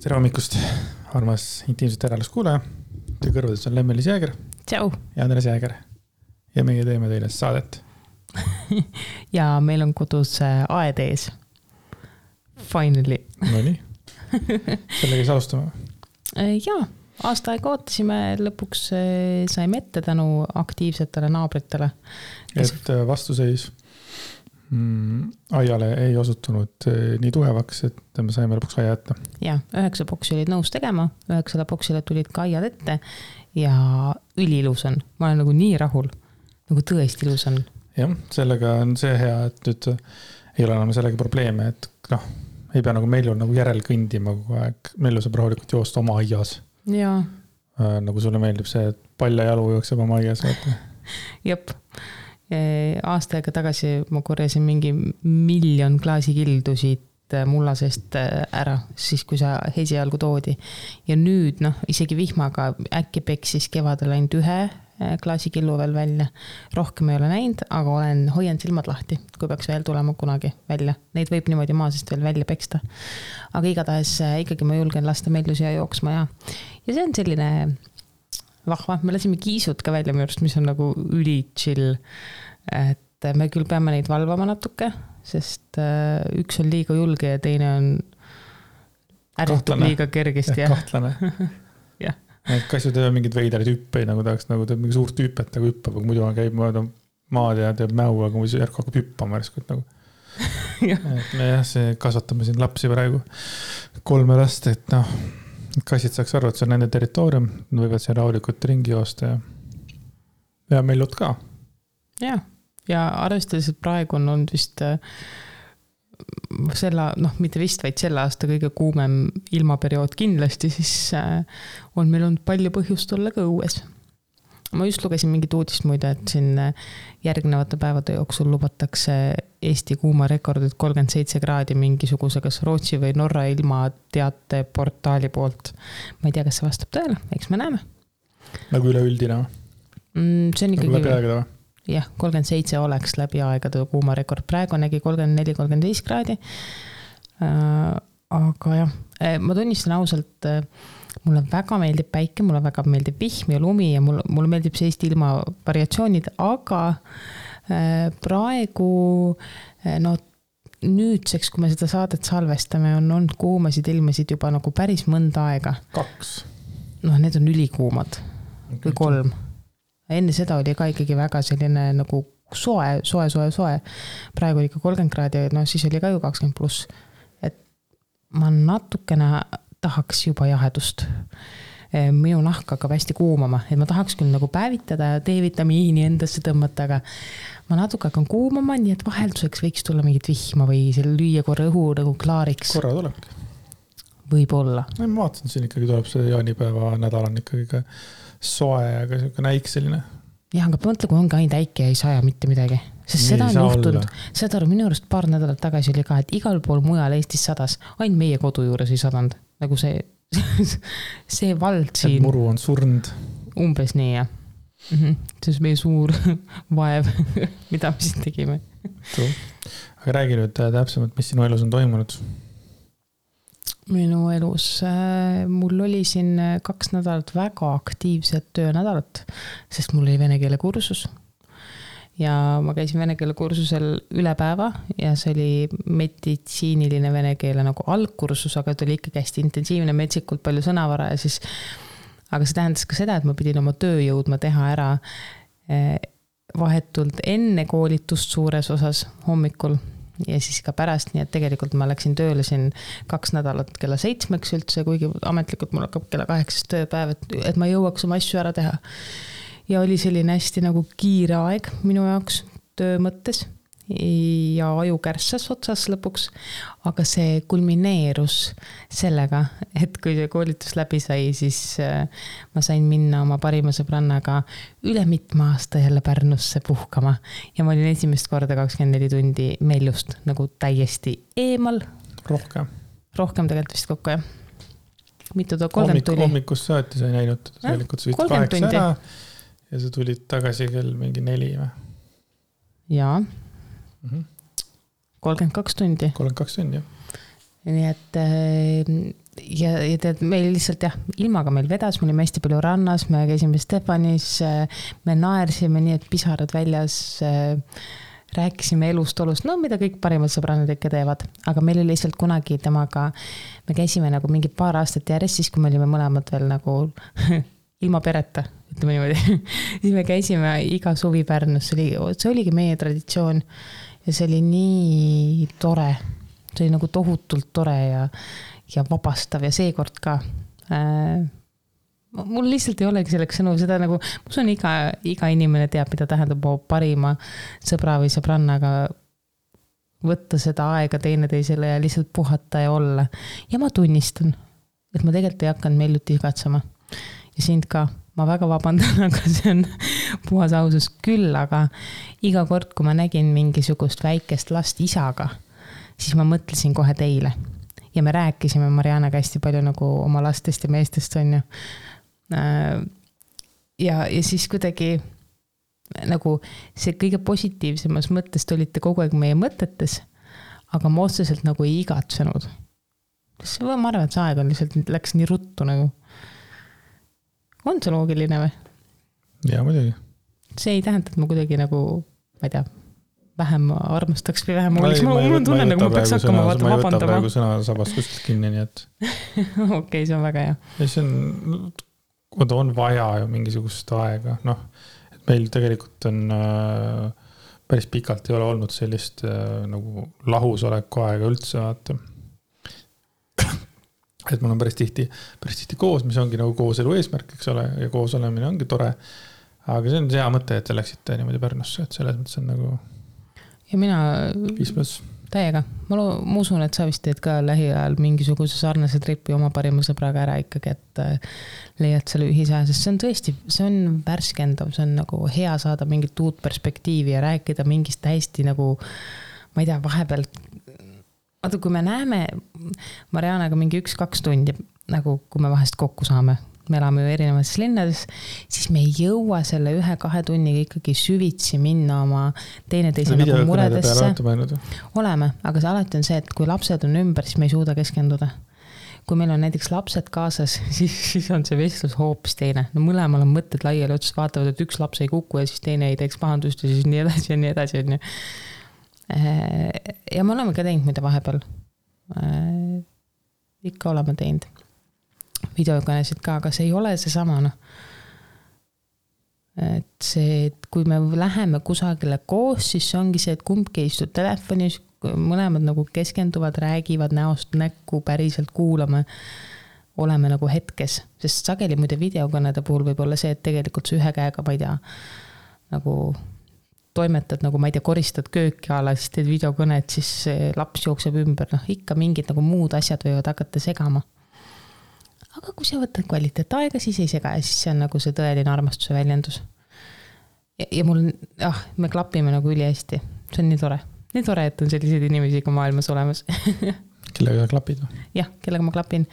Tere hommikust, armas intiimset järelust kuulaja. Teie kõrvades on Lemmelis Jääger. Tšau. Ja Andres Jääger. Ja meie teeme teile saadet. Ja meil on kodus aed ees. Finally. No nii. Sellega siis alustame. Jaa, aasta aega ootasime, lõpuks saime ette tänu aktiivsetele naabritele. Et vastuseis aiale ei osutunud nii tugevaks, et me saime lõpuks aia jätta. Jaa, 9 boksi olid nõus tegema, 9 boksile tulid ka aiad ette ja üliilus on. Ma olen nagu nii rahul, nagu tõesti ilus on. Jah, sellega on see hea, et nüüd ei ole enam sellega probleeme, et ei pea nagu Meljul nagu järel kõndima kogu aeg. Melju saab rahulikult joosta oma aias. Jaa. Nagu sulle meeldib see, et palja jalu jookseb oma aias. Jep. Aasta aega tagasi ma korjasin mingi 1 miljon klaasikildu siit mullasest ära, siis kui sa esialgu toodi. Ja nüüd, isegi vihmaga äkki peksis kevadel ainult 1 klaasikillu veel välja. Rohkem ei ole näinud, aga hoian silmad lahti, kui peaks veel tulema kunagi välja. Neid võib niimoodi maasest veel välja peksta. Aga igatahes ikkagi ma julgen lasta Melju siia jooksma ja see on selline vahva. Me lasime kiisud ka välja mürst, mis on nagu üli chill. Et me küll peame neid valvama natuke, sest üks on liiga julge ja teine on ärritub liiga kergesti. Kahtlane. Jah. Kasju teeb mingid veidrid hüppeid, nagu tahaks teeb mingi suurt hüppet, nagu hüppab, aga muidu käib maad ja teeb mäu, aga muidu järk hakkab hüppama järskut nagu. Me kasvatame siin lapsi praegu 3 last, et kassid saaks arvu, et see on nende territoorium, nad võivad siin rahulikult ringi joosta ja Meljut ka. Ja arvestades, et praegu on olnud vist mitte vist, vaid selle aasta kõige kuumem ilmaperiood kindlasti, siis on meil olnud palju põhjust olla ka õues. Ma just lugesin mingit uudist muide, et siin järgnevate päevade jooksul lubatakse Eesti kuumarekordid 37 kraadi mingisuguse kas Rootsi või Norra ilmateate portaali poolt. Ma ei tea, kas see vastab tõele, eks me näeme. Nagu üleüldine? See on ikkagi... Nagu läbi aegade või? Jah, 37 oleks läbi aegade kuumarekord. Praegu nägi 34-35 kraadi. Aga jah, ma tunnistan ausalt, mulle väga meeldib päike, mulle väga meeldib vihm ja lumi ja mulle meeldib see Eesti ilma variatsioonid, aga praegu nüüdseks, kui me seda saadet salvestame, on olnud kuumasid ilmasid juba nagu päris mõnda aega. 2. Need on ülikuumad või 3. Enne seda oli ka ikkagi väga selline nagu soe. Praegu oli ka 30 kraadi, siis oli ka ju 20+. Et ma natukene tahaks juba jahedust. Minu nahk hakkab hästi kuumama, et ma tahaks küll nagu päevitada ja D-vitamiini endasse tõmmata, aga ma natuke hakkan kuumama, nii et vahelduseks võiks tulla mingit vihma või lüüa korra õhu nagu klaariks. Korra tulebki. Võib-olla. Ma vaatan, siin ikkagi tuleb see jaanipäeva nädal on ikkagi ka soe, aga selline äik selline. Jah, aga mõtle, kui ongi ainult äike ja ei saja mitte midagi. Sest seda on juhtunud. Seda minu arust paar nädalat tagasi oli ka, et igal pool mujal Eestis sadas. Ainult meie kodu juures ei sadanud. Nagu see vald siin. Et muru on surnud. Umbes nii, jah. See on meie suur vaev, mida me siin tegime. Aga räägi nüüd täpsemalt, mis sinu elus on toimunud? Minu elus, mul oli siin 2 nädalat väga aktiivset töönädalat, sest mul oli vene keele kursus ja ma käisin vene keele kursusel üle päeva ja see oli meditsiiniline vene keele nagu algkursus, aga ta oli ikkagi hästi intensiivne, metsikult palju sõnavara ja siis, aga see tähendas ka seda, et ma pidin oma töö jõudma teha ära vahetult enne koolitust suures osas hommikul ja siis ka pärast, nii et tegelikult ma läksin tööle siin 2 nädalat kella 7 üldse, kuigi ametlikult mul hakkab kella 8 tööpäev, et ma jõuaks oma asju ära teha. Ja oli selline hästi nagu kiire aeg minu jaoks töö mõttes ja aju kärssas otsas lõpuks, aga see kulmineerus sellega, et kui see koolitus läbi sai, siis ma sain minna oma parima sõbrannaga üle mitme aasta jälle Pärnusse puhkama ja ma olin esimest korda 24 tundi Meljust nagu täiesti eemal. Rohkem tegelikult vist kokku, jah. Mitu 30 tuli? Hommikust saati sai näinud, tegelikult sa 8 ära ja sa tulid tagasi kell mingi 4 või? Jaa. 32 tundi. 32 tundi, jah. Nii et ja tead, meil lihtsalt jah, ilmaga meil vedas, me olime hästi palju rannas, me käisime Stefanis, me naersime nii, et pisarad väljas, rääkisime elust, olust, no mida kõik parimad sõbrannad ikka teevad, aga meil oli lihtsalt kunagi temaga, me käisime nagu mingi paar aastat järjest, siis kui me olime mõlemad veel nagu ilma pereta, ütleme niimoodi, siis me käisime iga suvi Pärnus, see oligi meie traditsioon ja see oli nii tore, see oli nagu tohutult tore ja vabastav ja seekord ka. Mul lihtsalt ei olegi selleks sõnu, seda nagu, ma usun iga inimene teab, mida tähendab parima sõbra või sõbrannaga võtta seda aega teineteisele ja lihtsalt puhata ja olla. Ja ma tunnistan, et ma tegelikult ei hakanud Melluti igatsema. Ja sind ka, ma väga vabandan, aga see on puhas ausus küll, aga iga kord, kui ma nägin mingisugust väikest last isaga, siis ma mõtlesin kohe teile. Ja me rääkisime Marianaga hästi palju nagu oma lastest ja meestest on ju. Ja siis kuidagi nagu see kõige positiivsemas mõttest olite kogu aeg meie mõtetes, aga ma otseselt nagu ei igatsenud. Ma arvan, et see aeg on lihtsalt läks nii ruttu nagu. On see loogiline või? Ja muidugi. See ei tähenda, et ma kuidagi nagu, ma ei tea, vähem armastaks või vähem oleks. Mul tunnen, nagu ma peaks hakkama vabandama. Ma ei võta praegu sõna sabast kuskilt kinni, nii et... Okei, see on väga hea. Ja see on vaja ju mingisugust aega. Noh, et meil tegelikult on päris pikalt ei ole olnud sellist nagu lahusoleku aega üldse, vaata. Et mul on päris tihti koos, mis ongi nagu kooselu eesmärk, eks ole, ja koos olemine ongi tore. Aga see on hea mõte, et te läksite niimoodi Pärnusse, et selles mõttes on nagu... Ja mina täiega. Ma usun, et sa vist teed ka lähiajal mingisuguse sarnase tripi oma parima sõbraga ära ikkagi, et leiad selle ühise, sest see on tõesti, see on värskendav, see on nagu hea saada mingit uut perspektiivi ja rääkida mingist täiesti nagu, ma ei tea, vahepeal, vaata, kui me näeme Marianaga mingi 1-2 tundi, nagu kui me vahest kokku saame, me elame ju erinevates linnades, siis me ei jõua selle 1-2 tunniga ikkagi süvitsi minna oma teineteise nagu muredesse. Oleme, aga see alati on see, et kui lapsed on ümber, siis me ei suuda keskenduda. Kui meil on näiteks lapsed kaasas, siis on see vestlus hoopis teine. No mõlemal on mõtted laiali otsas, vaatavad, et üks laps ei kuku ja siis teine ei teeks pahandust ja siis nii edasi ja nii edasi. Ja me oleme ka teinud mida vahepeal. Ikka oleme teinud videokõnesid ka, aga see ei ole see sama. No. Et see, et kui me läheme kusagile koos, siis see ongi see, et kumbki istud telefonis, mõlemad nagu keskenduvad, räägivad näost näkku, päriselt kuulame, oleme nagu hetkes. Sest sageli muide videokõnede puhul võib olla see, et tegelikult see ühe käega, ma ei tea, nagu toimetad, nagu ma ei tea, koristad kööki ala, siis teed videokõned, siis laps jookseb ümber. No, ikka mingid nagu muud asjad võivad hakata segama. Aga kui sa võtad kvaliteet aega, siis ei sega ja siis see on nagu see tõeline armastuse väljendus. Ja mul, me klapime nagu üli hästi. See on nii tore. Nii tore, et on selliseid inimesi ka maailmas olemas. Kellega klapid? Jah, kellega ma klapin.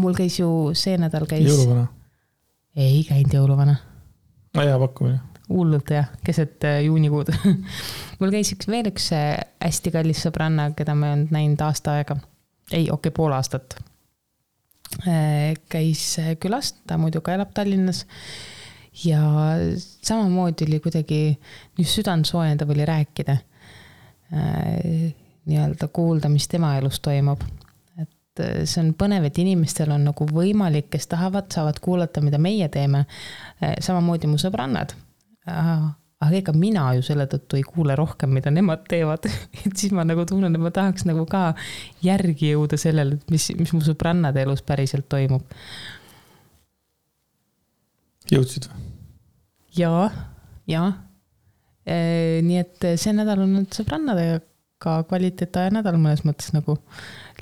Mul käis ju see nädal käis... Jõuluvana? Ei käinud jõuluvana. Hea pakkumine. Hullult jah, keset juunikuud. Mul käis veel üks hästi kallis sõbranna, keda ma ei olnud näinud aasta aega. Ei, pool aastat. Käis külast, ta muidu ka elab Tallinnas ja samamoodi oli kuidagi just südant soojendav oli rääkida nii-öelda kuulda, mis tema elus toimub. Et see on põnev, et inimestel on nagu võimalik, kes tahavad, saavad kuulata, mida meie teeme. Samamoodi mu sõbrannad. Aga ega mina ju selle tõttu ei kuule rohkem, mida nemad teevad. Et siis ma nagu tunnen, et ma tahaks nagu ka järgi jõuda sellele, mis mu sõbrannade elus päriselt toimub. Jõudsid või? Jaa. Nii et see nädal on sõbrannadega ka kvaliteetaja nädal mõnes mõttes nagu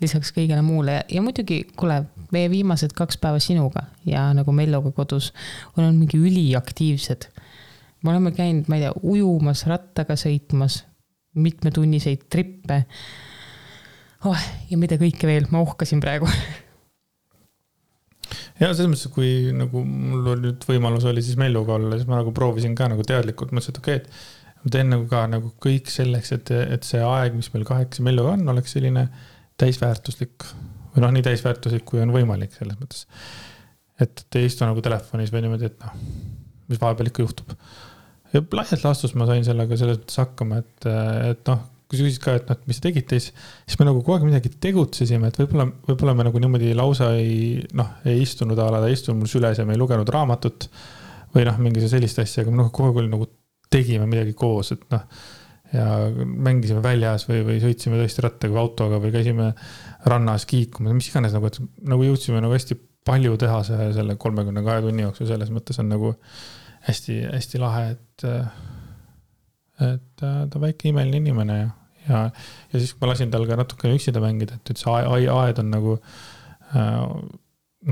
lisaks kõigele muule. Ja muidugi, kuule, meie viimased 2 päeva sinuga ja nagu Melloga kodus on mingi üliaktiivsed. Me oleme käinud, ma ei tea, ujumas, rattaga sõitmas, mitmetunniseid trippe. Ja mida kõike veel, ma ohkasin praegu. Ja selles mõttes, kui nagu mul nüüd võimalus oli siis Melluga olla, siis ma nagu proovisin ka nagu teadlikult, mõtlesin, et okei, et ma teen nagu ka nagu kõik selleks, et see aeg, mis meil 8 Melluga on, oleks selline täisväärtuslik, või noh, nii täisväärtuslik, kui on võimalik selles mõttes. Et ei istu nagu telefonis või niimoodi, et noh, mis vahepeal ikka juhtub. Ja laialt laastus ma sain sellega selles mõttes hakkama, et noh, kui sa küsid ka, et noh, mis te tegite, siis me nagu kogu aeg midagi tegutsesime, et võib-olla me nagu niimoodi lausa ei istunud ta istunud mul süles ja me ei lugenud raamatut või noh, mingi sellist asja, aga me kogu aeg nagu tegime midagi koos, et noh, ja mängisime väljas või sõitsime tõesti rattaga või autoga või käisime rannas kiikuma, mis iganes nagu, et nagu jõudsime nagu hästi palju teha selle 32 tunni jooksul, selles mõttes on nagu hästi, hästi lahe, et ta väike imeline inimene ja siis kui ma lasin tal ka natukene üksida mängida, et see aed on nagu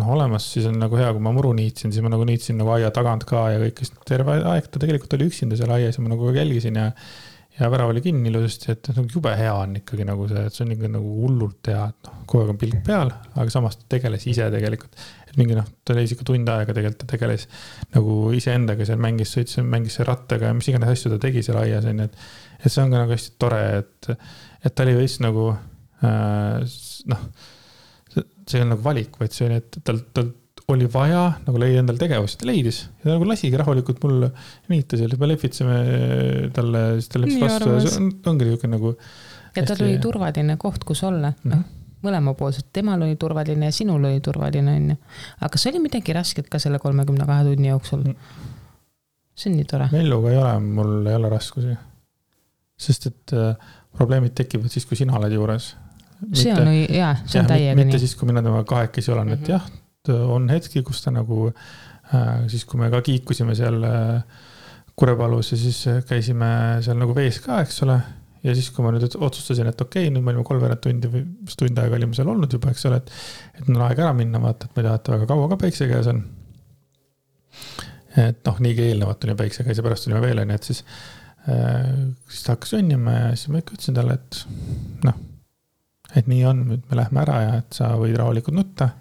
olemas, siis on nagu hea, kui ma muru niitsin, siis ma nagu niitsin nagu aia tagant ka ja kõik, terve aeg ta tegelikult oli üksinda seal aias ja ma nagu jälgisin ja värav oli kinni ilusasti, et nagu jube hea on ikkagi nagu see, et see on ikka nagu hullult hea, et kogu aeg on pilk peal, aga samas ta tegeles ise tegelikult, et mingi ta leis ikka tund aega tegelikult, ta tegeles nagu ise endaga seal mängis rattaga ja mis iganes asju ta tegi seal aias, et see on ka nagu hästi tore, et ta oli veits nagu see on nagu valik, vaid see oli, et tal oli vaja nagu leida endal tegevust, ta leidis ja ta nagu lasigi rahulikult mul niita seal, me lehvitseme talle, siis ta läks vastu ja see ongi niisugune nagu ja tal oli turvaline koht, kus olla, mõlemapoolselt, temal oli turvaline ja sinul oli turvaline, on ju. Aga kas oli midagi rasket ka selle 32 tunni jooksul? See on nii tore. Melluga ei ole, mul ei ole raskusi. Sest et probleemid tekivad siis, kui sina oled juures. See on täiega nii. Mitte siis, kui mina temaga kahekesi olen, et jah, on hetki, kus ta nagu, siis kui me ka kiikusime seal Kurepalus ja siis käisime seal nagu vees ka, eks ole. Ja siis, kui ma nüüd otsustasin, et okei, nüüd me olime 3 tundi või tund aega olime seal olnud juba, eks ole, et on aeg ära minna, vaata, et me tahate väga kaua ka päikse käes on. Et noh, nii eelnevalt tuli päikse käes ja pärast tulime veel, et siis ta hakkas õnnima ja siis ma ikka ütlesin talle, et noh, et nii on, nüüd me lähme ära ja et sa võid rahulikult nutta,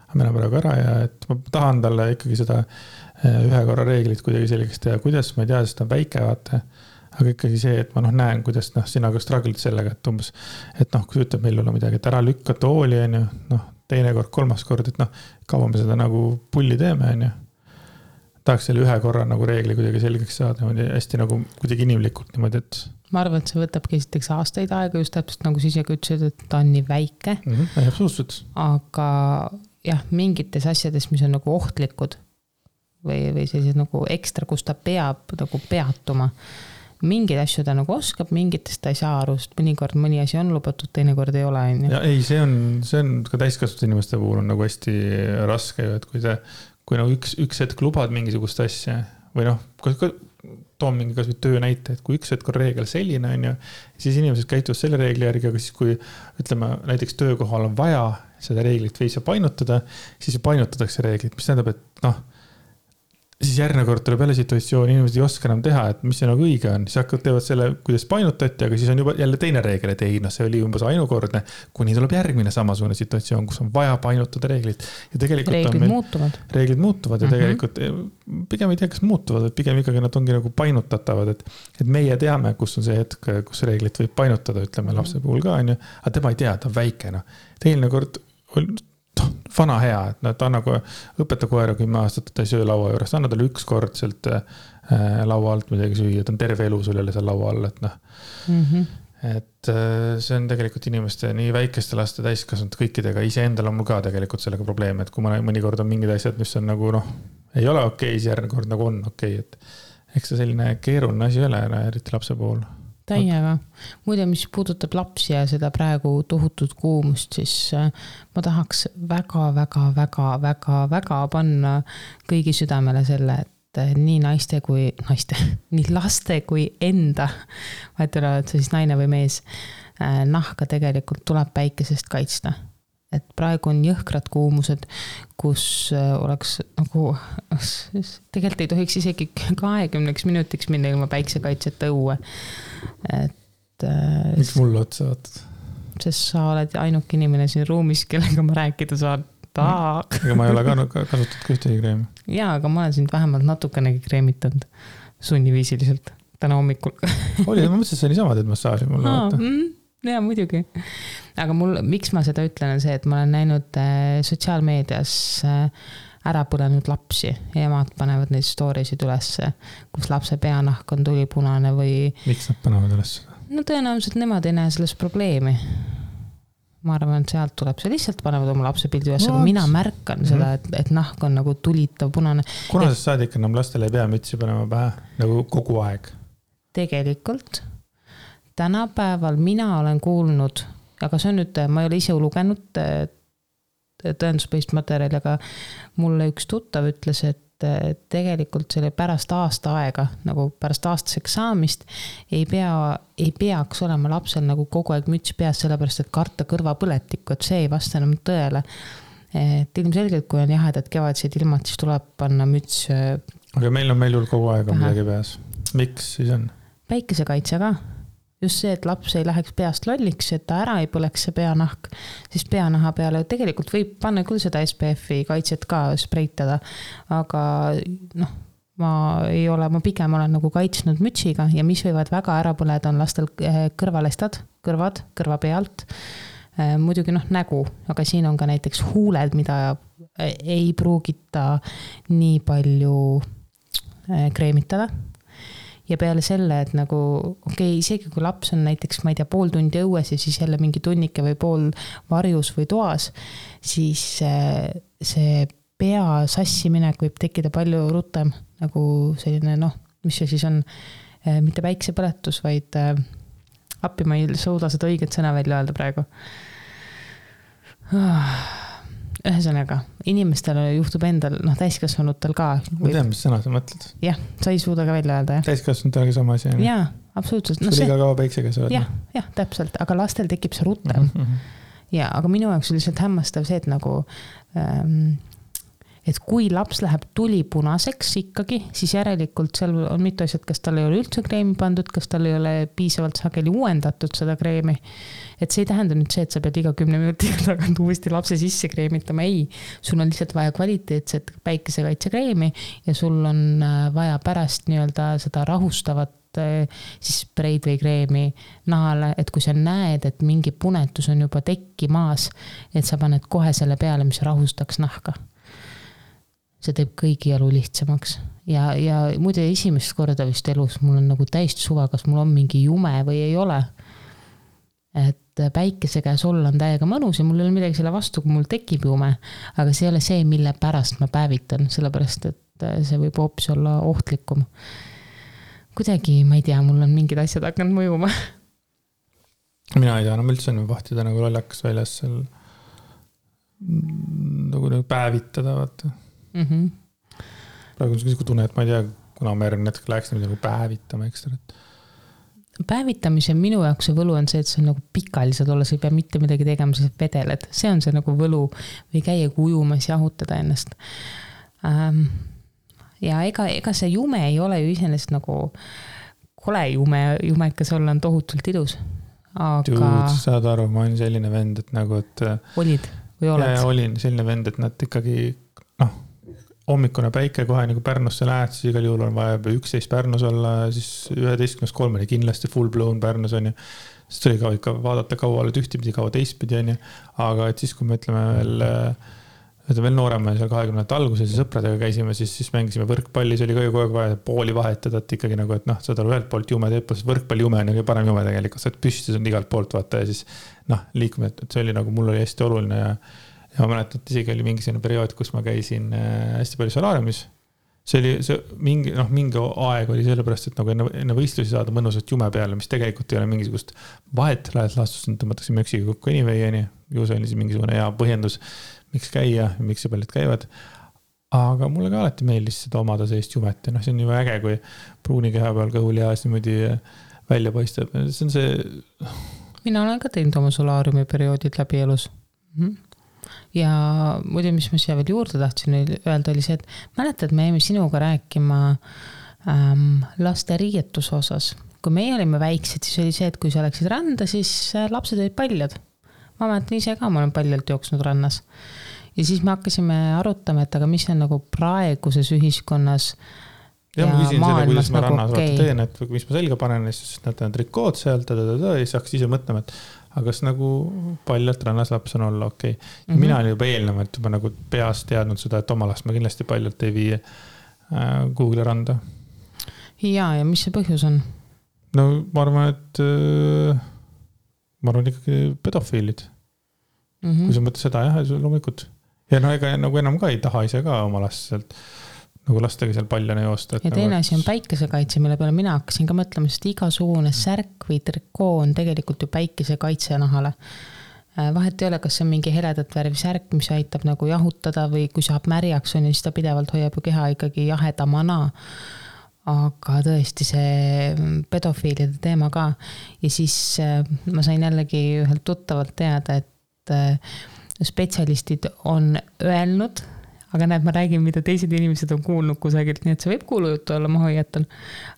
aga me läheme praegu ära ja et ma tahan talle ikkagi seda ühe korra reeglit kuidagi selgeks teha, kuidas ma ei tea, sest ta on väike, vaata, aga ikkagi see, et ma näen, kuidas sina ka struggled sellega, et umbes, et kui sa ütleb meil olla midagi, et ära lükka tooli, on ju, teine kord, kolmas kord, et kaua me seda nagu pulli teeme, on ju. Tahaks selle ühe korra nagu reegli kuidagi selgeks saada, hästi nagu kuidagi inimlikult niimoodi, et ma arvan, et see võtabki esiteks aastaid aega, just täpselt nagu siis ja ütlesid, et ta on nii väike. Absoluutselt. Aga jah, mingites asjades, mis on nagu ohtlikud või sellised nagu ekstra, kus ta peab nagu peatuma. Mingid asju ta nagu oskab, mingitest ta ei saa aru, sest mõnikord mõni asi on lubatud, teine kord ei ole. Ja ei, see on ka täiskasvanud inimeste puhul on nagu hästi raske, et kui nagu üks hetk lubad mingisugust asja või toon mingi kas või töö näite, et kui üks hetk on reegel selline, on ju, siis inimesed käituvad selle reegli järgi, aga siis kui ütleme, näiteks töökohal on vaja seda reeglit veits painutada, siis painutatakse reeglit, mis tähendab, et siis järgmine kord tuleb jälle situatsioon, inimesed ei oska enam teha, et mis see nagu õige on, siis hakkavad teevad selle, kuidas painutati, aga siis on juba jälle teine reegel, et ei, see oli umbes ainukordne, kuni tuleb järgmine samasugune situatsioon, kus on vaja painutada reeglit. Ja tegelikult reeglid muutuvad ja tegelikult pigem ei tea, kas muutuvad, et pigem ikkagi nad ongi nagu painutatavad, et meie teame, kus on see hetk, kus reeglit võib painutada, ütleme lapse puhul ka, on ju, aga tema ei tea, ta on väike, Teine kord vana hea, et ta on nagu õpeta koera 10 aastat, ta ei söö laua juures, anna talle üks kord sealt laua alt midagi süüa, ta on terve elu sul jälle seal laua all, et et see on tegelikult inimeste nii väikeste laste täiskasvanud kõikidega, iseendal on mul ka tegelikult sellega probleem, et kui mõnikord on mingid asjad, mis on nagu ei ole okei, siis järgmine kord nagu on okei, et eks see selline keeruline asi ei ole, eriti lapse puhul. Täiega. Muide, mis puudutab lapsi ja seda praegu tohutut kuumust, siis ma tahaks väga panna kõigi südamele selle, et nii nii laste kui enda, vahet ei ole, et see siis naine või mees, nahka tegelikult tuleb päikesest kaitsta. Et praegu on jõhkrad kuumused, kus oleks nagu, tegelikult ei tohiks isegi 20 minutiks minna ilma päiksekaitseta õue. Miks mulle otsa vaatad? Sest sa oled ainuke inimene siin ruumis, kellega ma rääkida saan. Ega ma ei ole kasutatud ühtegi kreemi. Jaa, aga ma olen sind vähemalt natukenegi kreemitanud sunniviisiliselt täna hommikul. Oli, ma mõtlesin, et see niisama teed massaaži mulle vaata. jaa, muidugi. Aga miks ma seda ütlen, on see, et ma olen näinud sotsiaalmeedias ära põlenud lapsi ja emad panevad neid story'sid ülesse, kus lapse peanahk on tulipunane või... Miks nad panevad ülesse? No tõenäoliselt nemad ei näe selles probleemi. Ma arvan, et sealt tuleb see lihtsalt panevad oma lapse pildi üles, aga mina märkan seda, et nahk on nagu tulitav punane. Kunasest saadik enam lastele ei pea mütsi panema pähe nagu kogu aeg? Tegelikult tänapäeval mina olen kuulnud, aga see on nüüd, ma ei ole ise lugenud tõenduspõhist materjali, aga mulle üks tuttav ütles, et tegelikult selle pärast aasta aega, nagu pärast aastaseks saamist, ei peaks olema lapsel nagu kogu aeg müts peas, sellepärast et karta kõrvapõletikku, et see ei vasta enam tõele. Et ilmselgelt, kui on jahedad kevadised ilmad, siis tuleb panna müts. Aga meil on kogu aeg midagi peas. Miks siis on? Päikesekaitse ka. Just see, et laps ei läheks peast lolliks, et ta ära ei põleks see peanahk, siis peanaha peale tegelikult võib panna küll seda SPF-i kaitset ka spreitada, aga ma pigem olen nagu kaitsnud mütsiga ja mis võivad väga ära põleda, on lastel kõrvalestad, kõrva pealt, muidugi nägu, aga siin on ka näiteks huuled, mida ei pruugita nii palju kreemitada. Ja peale selle, et nagu, isegi kui laps on näiteks, ma ei tea, pool tundi õues ja siis jälle mingi tunnike või pool varjus või toas, siis see pea sassiminek võib tekkida palju rutem, nagu selline, mis see siis on, mitte päiksepõletus, vaid appi ma ei suuda seda õiget sõna välja öelda praegu. Ühesõnaga, inimestel juhtub endal, täiskasvanutel ka. Ma tean, mis sõna sa mõtled. Jah, sa ei suuda ka välja öelda, jah. Täiskasvanutel ka sama asi. Jaa, absoluutselt. Sul iga kaua päiksega sa oled. Jah, täpselt, aga lastel tekib see rutem. Ja, aga minu jaoks on lihtsalt hämmastav see, et nagu... Et kui laps läheb tulipunaseks ikkagi, siis järelikult seal on mitu asjad, kas tal ei ole üldse kreemi pandud, kas tal ei ole piisavalt sageli uuendatud seda kreemi. Et see ei tähenda nüüd see, et sa pead iga 10 minutiga tagant uuesti lapse sisse kreemitama. Ei, sul on lihtsalt vaja kvaliteetset päikesekaitsekreemi ja sul on vaja pärast nii-öelda seda rahustavat siis spreid või kreemi nahale, et kui sa näed, et mingi punetus on juba tekkimaas, et sa paned kohe selle peale, mis rahustaks nahka. See teeb kõigi elu lihtsamaks. Ja muide esimest korda vist elus mul on nagu täist suva, kas mul on mingi jume või ei ole. Et päikese käes olla on täiega mõnus ja mul ei ole midagi selle vastu, kui mul tekib jume. Aga see ei ole see, mille pärast ma päevitan, sellepärast, et see võib hoopis olla ohtlikum. Kuidagi, ma ei tea, mul on mingid asjad hakanud mõjuma. Mina ei tea, üldse on vahtida nagu lollakas väljas seal nagu päevitada, vaata. Praegu on see tunne, et ma ei tea, kuna ma järgmine hetk läheks nagu päevitama ekstra. Päevitamise minu jaoks see võlu on see, et see on nagu pikalised olla, sa ei pea mitte midagi tegema, sa vedeled. See on see nagu võlu või käia ujumas ja jahutada ennast. Ja ega see jume ei ole ju iseenesest nagu kole jumekas olla on tohutult ilus. Aga... Dude, saad aru, ma olen selline vend, et nagu, et... Olid või oled? Ja olin selline vend, et nad ikkagi, hommikune päike kohe nagu Pärnusse lähed, siis igal juhul on vaja 11 Pärnus olla, siis 11.3 kindlasti full blown Pärnus on ju. Siis tuli ka ikka vaadata kaua oled ühtipidi, kaua teistpidi on ju. Aga et siis, kui me ütleme veel noorema seal 20. alguses ja sõpradega käisime, siis mängisime võrkpalli, see oli ka ju kogu aeg vaja pooli vahetada, et ikkagi nagu, et seda ühelt poolt jume teeb, võrkpalli jume on ju parem jume tegelikult, et püstis on igalt poolt vaata ja siis liikume, et see oli nagu mul oli hästi oluline ja ma mäletan, et isegi oli mingi selline periood, kus ma käisin hästi palju solaariumis. See oli mingi aeg oli sellepärast, et nagu enne võistlusi saada mõnusat jume peale, mis tegelikult ei ole mingisugust vahet, lähed laastust, tõmmatakse möksiga kokku anyway, ju see oli mingisugune hea põhjendus, miks käia ja miks see paljud käivad. Aga mulle ka alati meeldis seda omada sellist jumet ja see on juba äge, kui pruuni keha peal kõhulihas niimoodi välja paistab. See on see... Mina olen ka teinud oma solaariumi perioodid läbi elus. Ja muidu, mis ma siia veel juurde tahtsin öelda, oli see, et mäletad, me jäime sinuga rääkima laste riietuse osas. Kui meie olime väiksed, siis oli see, et kui sa läksid randa, siis lapsed olid paljad. Ma mäletan ise ka, ma olen paljalt jooksnud rannas. Ja siis me hakkasime arutama, et aga mis on nagu praeguses ühiskonnas ja ma küsin selle, kuidas ma rannas teen, et mis ma selga panen, siis nad on trikood sealt, ja siis hakkas ise mõtlema, et aga kas nagu paljalt rannas laps on olla okei. Mina olin juba eelnevalt juba nagu peas teadnud seda, et oma last ma kindlasti paljalt ei vii Google'i randa. Ja mis see põhjus on? No ma arvan, et ikkagi pedofiilid. Kui sa mõtled seda, jah, loomulikult. Ja no ega nagu enam ka ei taha ise ka oma last sealt nagu lastega seal paljana joosta. Ja teine asi on päikesekaitse, mille peale mina hakkasin ka mõtlema, sest igasugune särk või trikoo on tegelikult ju päikesekaitse nahale. Vahet ei ole, kas see on mingi heledat värvi särk, mis aitab nagu jahutada või kui saab märjaks on, siis ta pidevalt hoiab ju keha ikkagi jahedamana. Aga tõesti see pedofiilide teema ka. Ja siis ma sain jällegi ühelt tuttavalt teada, et spetsialistid on öelnud, aga näed, ma räägin, mida teised inimesed on kuulnud kusagilt, nii et see võib kuulujutu olla, ma hoiatan.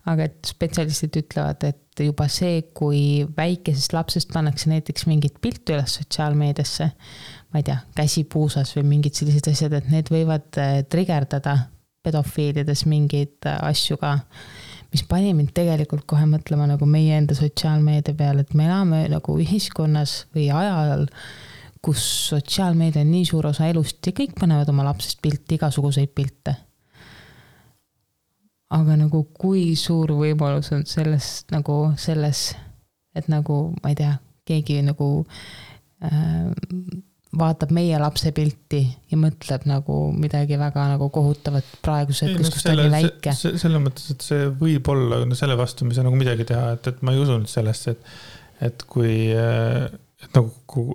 Aga et spetsialistid ütlevad, et juba see, kui väikesest lapsest pannakse näiteks mingit piltu üles sotsiaalmeediasse, ma ei tea, käsi puusas või mingid sellised asjad, et need võivad trigerdada pedofiilides mingeid asju ka, mis pani mind tegelikult kohe mõtlema nagu meie enda sotsiaalmeedia peale, et me elame nagu ühiskonnas või ajal, kus sotsiaalmeedia on nii suur osa elust ja kõik panevad oma lapsest pilti, igasuguseid pilte. Aga nagu kui suur võimalus on selles, et nagu, ma ei tea, keegi nagu vaatab meie lapse pilti ja mõtleb nagu midagi väga nagu kohutavat praeguse hetkes, kus ta oli väike. Selle mõttes, et see võib olla selle vastu, mis on nagu midagi teha, et ma ei usunud sellesse, et kui et nagu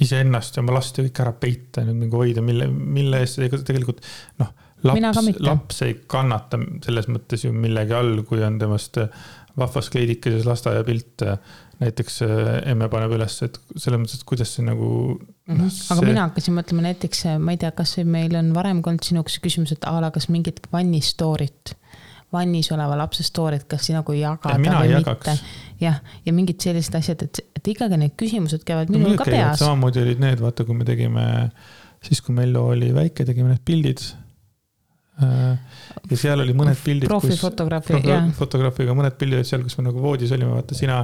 iseennast ja oma last ja kõik ära peita nüüd mingi hoida, mille eest tegelikult laps ei kannata selles mõttes ju millegi all, kui on temast vahvas kleidikeses lasteaia pilt näiteks emme paneb üles, et selles mõttes, et kuidas see nagu aga mina hakkasin mõtlema näiteks, ma ei tea, kas meil on varem olnud sinuks küsimus, et kas mingit vannistorit vannis oleva lapse stoorid, kas nagu jagada või mitte. Ja mingid sellised asjad, et ikkagi need küsimused käivad minul ka peas. Samamoodi olid need, vaata, kui me tegime, siis kui Mello oli väike, tegime need pildid. Ja seal oli mõned pildid, fotograafiga mõned pildid seal, kus me nagu voodis olime, vaata sina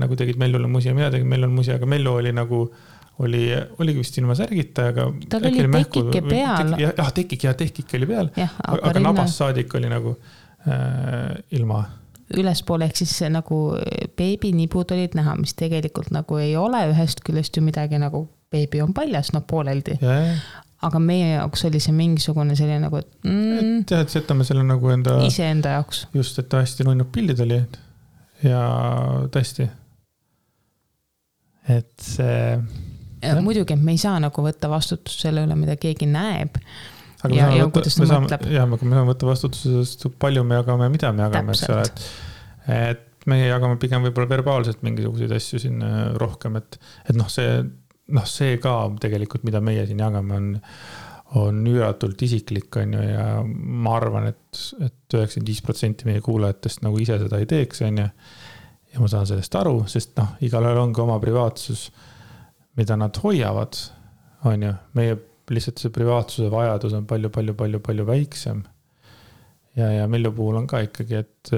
nagu tegid Mellole musi ja mina tegin Mellole musi, aga Mello oli nagu oligi vist ilma särgita, aga tal oli tekike peal. Tekik oli peal, aga nabas saadik oli nagu ilma. Ülespoole ehk siis nagu beebinibud olid näha, mis tegelikult nagu ei ole ühest küljest ju midagi nagu beebi on paljas, pooleldi. Aga meie jaoks oli see mingisugune selline nagu, et setame selle nagu iseenda jaoks. Just, et hästi nunnud pildid oli ja tõesti. Et see muidugi, me ei saa nagu võtta vastutust selle üle, mida keegi näeb. Ja kuidas ta mõtleb. Jah, me saame võtta vastutust, palju me jagame, mida me jagame. Et meie jagame pigem võib-olla verbaalselt mingisuguseid asju siin rohkem. Et see ka tegelikult, mida meie siin jagame, on üüratult isiklik. Ja ma arvan, et 95% meie kuulajatest nagu ise seda ei teeks. Ja ma saan sellest aru, sest igalühel on ka oma privaatsus, mida nad hoiavad, on ju. Meie lihtsalt see privaatsuse vajadus on palju väiksem. Ja Mellu puhul on ka ikkagi, et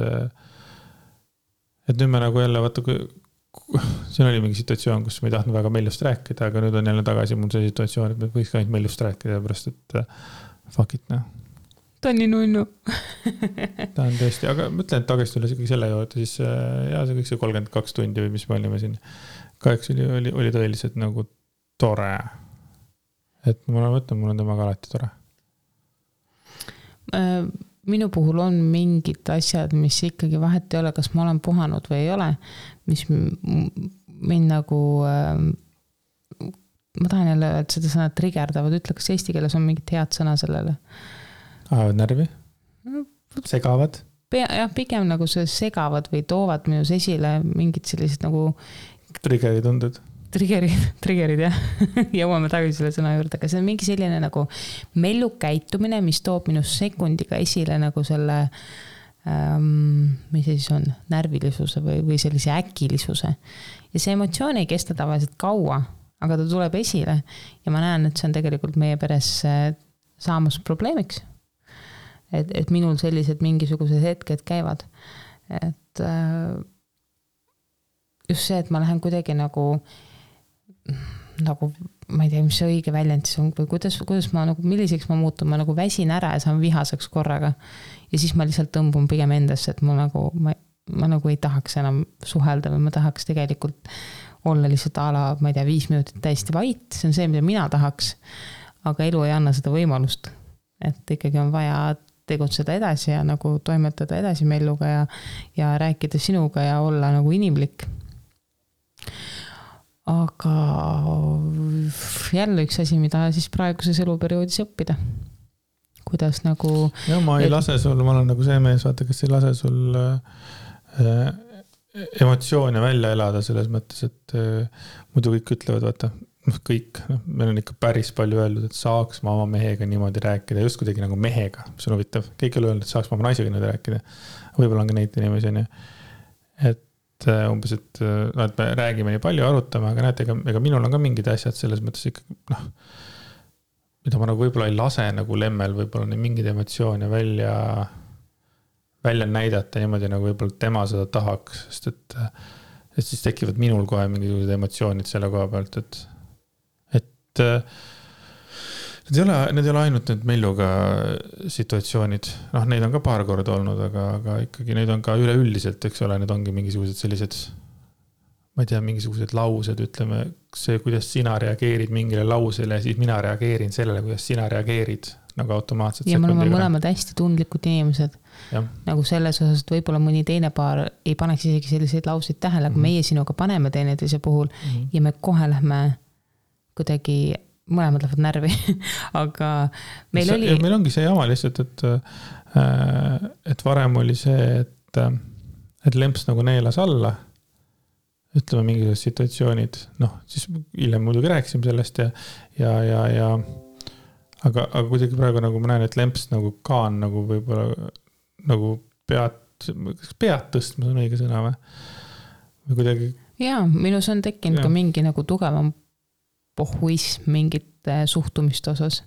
nüüd me nagu jälle, vaata, siin oli mingi situatsioon, kus me ei tahtnud väga Mellust rääkida, aga nüüd on jälle tagasi mul see situatsioon, et me võiks ka ainult Mellust rääkida, pärast, et fuck it, Ta on nii nunnu. Ta on tõesti, aga mõtlen, et tagasi üles ikkagi selle juurde, siis see kõik see 32 tundi või mis me olime siin. Kaheks oli tõeliselt nagu tore. Et mul on temaga alati tore. Minu puhul on mingid asjad, mis ikkagi vahet ei ole, kas ma olen puhanud või ei ole, mis mind nagu, ma tahan jälle, et seda sõna trigerdavad, ütle, kas eesti keeles on mingit head sõna sellele? Ajavad närvi? Segavad? Jah, pigem nagu see segavad või toovad minus esile mingid sellised nagu triggerid tunded. Triggerid, jah. Jõuame tagasi selle sõna juurde, aga see on mingi selline nagu Mellu käitumine, mis toob minus sekundiga esile nagu selle, mis see siis on, närvilisuse või sellise äkilisuse. Ja see emotsioon ei kesta tavaliselt kaua, aga ta tuleb esile ja ma näen, et see on tegelikult meie peres saamas probleemiks. et minul sellised mingisugused hetked käivad. Et just see, et ma lähen kuidagi nagu ma ei tea, mis see õige väljend siis on, või kuidas ma nagu, milliseks ma muutun, ma nagu väsin ära ja saan vihaseks korraga. Ja siis ma lihtsalt tõmbun pigem endasse, et ma nagu ei tahaks enam suhelda või ma tahaks tegelikult olla lihtsalt ma ei tea, 5 minutit täiesti vait, see on see, mida mina tahaks, aga elu ei anna seda võimalust, et ikkagi on vaja tegutseda edasi ja nagu toimetada edasi melluga ja rääkida sinuga ja olla nagu inimlik. Aga jälle üks asi, mida siis praeguses eluperioodis õppida. Kuidas nagu... Ja ma ei lase sul, ma olen nagu see mees, vaata, kes ei lase sul emotsioone välja elada selles mõttes, et muidu kõik ütlevad, vaata, kõik, meil on ikka päris palju öeldud, et saaks ma oma mehega niimoodi rääkida, just kuidagi nagu mehega, mis on huvitav. Kõik ei ole öelnud, et saaks ma oma naisega niimoodi rääkida. Võib-olla on ka neid inimesi, et umbes, et me räägime nii palju, arutame, aga näete, ega minul on ka mingid asjad selles mõttes ikkagi, mida ma nagu võib-olla ei lase nagu lemmel, võib-olla nii mingid emotsioone välja näidata niimoodi, nagu võib-olla tema seda tahaks, sest et siis tekivad minul kohe mingisugused emotsioonid selle koha pealt, et need ei ole ainult need melluga situatsioonid, neid on ka paar korda olnud, aga ikkagi neid on ka üleüldiselt, eks ole, need ongi mingisugused sellised, ma ei tea, mingisugused laused, ütleme, see, kuidas sina reageerid mingile lausele, siis mina reageerin sellele, kuidas sina reageerid nagu automaatselt. Ja me oleme mõlemad hästi tundlikud inimesed. Ja. Nagu selles osas, et võib-olla mõni teine paar ei paneks isegi selliseid lauseid tähele, aga meie sinuga paneme teineteise puhul ja me kohe lähme kuidagi mõlemad lähevad närvi, aga meil ongi see jama lihtsalt, et varem oli see, et lemps nagu neelas alla, ütleme mingisugused situatsioonid, siis hiljem muidugi rääkisime sellest aga kuidagi praegu nagu ma näen, et lemps nagu ka on nagu võib-olla nagu pead tõstma, see on õige sõna või kuidagi. Jaa, minus on tekkinud ka mingi nagu tugevam pohhuism mingite suhtumiste osas.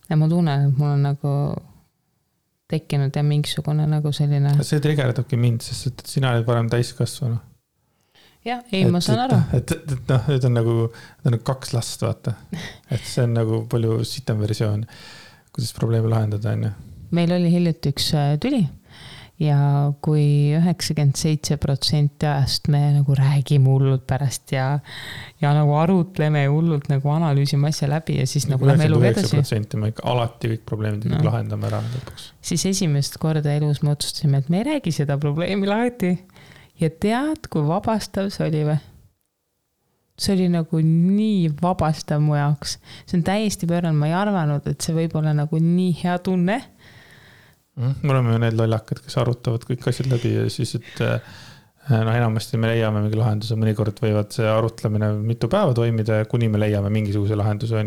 Ja ma tunnen, et mul on nagu tekkinud ja mingisugune nagu selline... See trigerdabki mind, sest et sina oled varem täiskasvanu. Jah, ei, ma saan aru. Et on nagu 2 last, vaata. Et see on nagu palju sitem versioon, kuidas probleemi lahendada. Meil oli hiljuti üks tüli. Ja kui 97% ajast me nagu räägime hullult pärast ja nagu arutleme hullult nagu analüüsime asja läbi ja siis nagu lähme elu edasi. 99% me ikka alati kõik probleemid lahendame ära lõpuks. Siis esimest korda elus me otsustasime, et me ei räägi seda probleemi lahti. Ja tead, kui vabastav see oli või? See oli nagu nii vabastav mu jaoks. See on täiesti pööranud, ma ei arvanud, et see võib olla nagu nii hea tunne. Me oleme ju need lollakad, kes arutavad kõik asjad läbi ja siis, et enamasti me leiame mingi lahenduse, mõnikord võivad see arutlemine mitu päeva toimida, kuni me leiame mingisuguse lahenduse.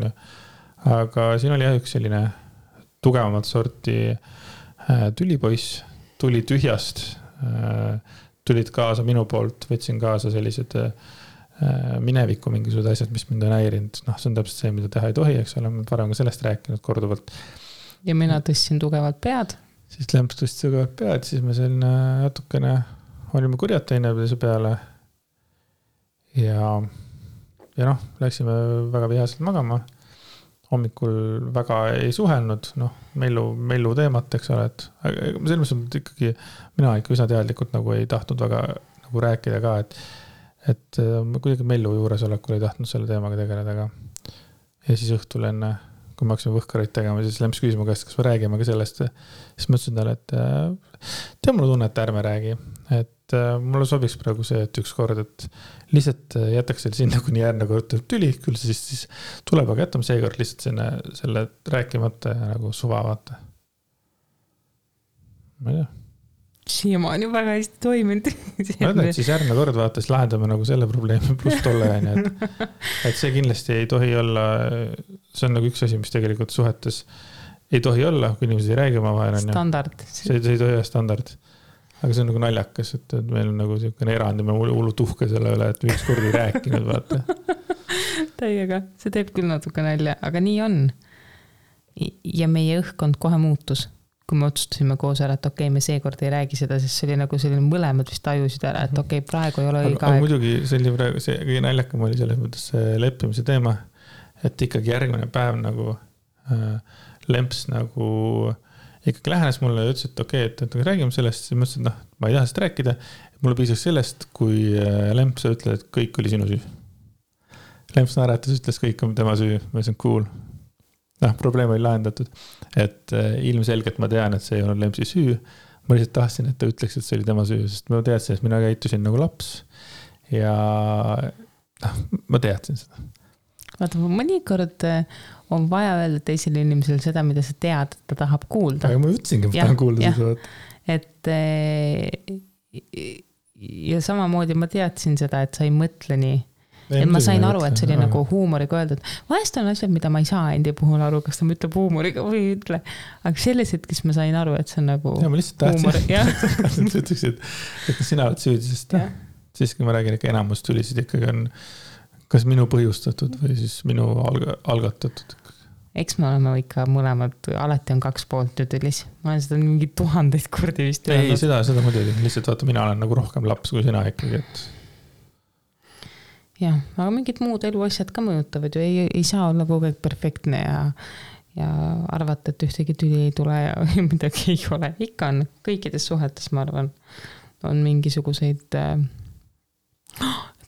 Aga siin oli üks selline tugevamat sorti tülipoiss, tuli tühjast, tulid kaasa minu poolt, võtsin kaasa sellised mineviku mingisugused asjad, mis mind on häirinud. See on täpselt see, mida teha ei tohi, eks ole, me varem ka sellest rääkinud korduvalt. Ja mina tõstsin tugevalt pead. Siis lemps tõstis tugevalt pead, siis me selline natukene olime kurjad teineteise peale ja läksime väga vihaselt magama. Hommikul väga ei suhelnud, mellu teemat, eks ole, et selles mõttes ikkagi mina ikka üsna teadlikult nagu ei tahtnud väga nagu rääkida ka, et kuidagi mellu juuresolekul ei tahtnud selle teemaga tegeleda. Ja siis õhtul enne kui me hakkasime võhkareid tegema, siis lemps küsima käest, kas me räägime ka sellest. Siis ma ütlesin talle, et mulle tunne, et ärme räägi. Et mulle sobiks praegu see, et üks kord, et lihtsalt jätaks selle sinna, kuni järgmine kord tüli, küll siis tuleb, aga jätame seekord lihtsalt selle rääkimata ja nagu suva vaata. Ma ei tea. Siiamaani väga hästi toiminud. Ma ütlen, et siis järgmine kord vaata, siis lahendame nagu selle probleemi pluss tolle, et see kindlasti ei tohi olla, see on nagu üks asi, mis tegelikult suhetes ei tohi olla, kui inimesed ei räägi oma vahel. Standard. See ei tohi olla standard. Aga see on nagu naljakas, et meil on nagu selline erand ja me hullu tuhke selle üle, et üks kord ei rääkinud, vaata. Täiega, see teeb küll natuke nalja, aga nii on. Ja meie õhkkond kohe muutus. kui me otsustasime koos ära, et okei, me seekord ei räägi seda, sest see oli nagu selline mõlemad vist tajusid ära, et okei, praegu ei ole õige aeg. Muidugi see kõige naljakam oli selles mõttes leppimise teema, et ikkagi järgmine päev nagu Lemps nagu ikkagi lähenes mulle ja ütles, et okei, et räägime sellest, siis mõtlesin, et ma ei taha sellest rääkida. Mulle piisaks sellest, kui Lemps ütles, et kõik oli sinu süü. Lemps naeratas, ütles, kõik on tema süü. Ma ütlesin, cool. Probleem oli lahendatud. Et ilmselgelt ma tean, et see ei olnud Lempsi süü. Ma lihtsalt tahtsin, et ta ütleks, et see oli tema süü, sest ma teadsin, et mina käitusin nagu laps. Ja ma teadsin seda. Vaata, mõnikord on vaja öelda teisele inimesele seda, mida sa tead, et ta tahab kuulda. Aga ma ütlesingi, et ma tahan kuulda seda. Et ja samamoodi ma teadsin seda, et sa ei mõtle nii. Et ma sain aru, et see oli nagu huumoriga öeldud. Vahest on asjad, mida ma ei saa endi puhul aru, kas ta ma ütleb huumoriga või ei ütle. Aga selles hetkes ma sain aru, et see on nagu ja, ma lihtsalt tahtsin, et ütleksid, et sina oled süüdi, sest siis, kui ma räägin, ikka enamus tülisid ikkagi on kas minu põhjustatud või siis minu algatatud. Eks me oleme ikka mõlemad, alati on 2 poolt tülis. Ma olen seda mingi 1000 kordi vist öelnud. Ei, seda muidugi. Lihtsalt vaata, mina olen nagu rohkem laps kui sina ikkagi. Et... jah, aga mingid muud eluasjad ka mõjutavad ju. Ei saa olla kogu aeg perfektne ja arvata, et ühtegi tüli ei tule ja midagi ei ole. Ikka on kõikides suhetes, ma arvan, on mingisuguseid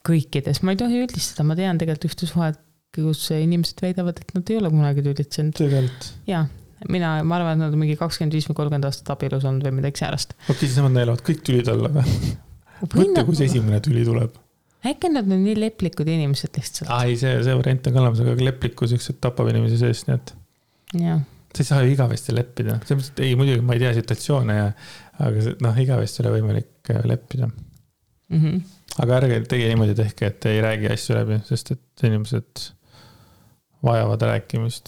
kõikides. Ma ei tohi üldistada, ma tean tegelikult ühte suhet, kus inimesed väidavad, et nad ei ole kunagi tülitsenud. Tegelikult. Jaa, ma arvan, et nad on mingi 25 või 30 aastat abielus olnud või midagi säärast. Okei, siis nemad neelavad kõik tülid alla või? Mõtle, kus esimene tüli tuleb. Äkki nad on nii leplikud inimesed lihtsalt. Ei, see variant on kalamas, aga leplikkus üks tapab inimesi seest, nii et sa ei saa ju igavesti leppida. Ei, muidugi ma ei tea situatsioone, aga igavesti ole võimalik leppida. Aga ärge tege niimoodi tehke, et ei räägi asju läbi, sest et inimesed vajavad rääkimist.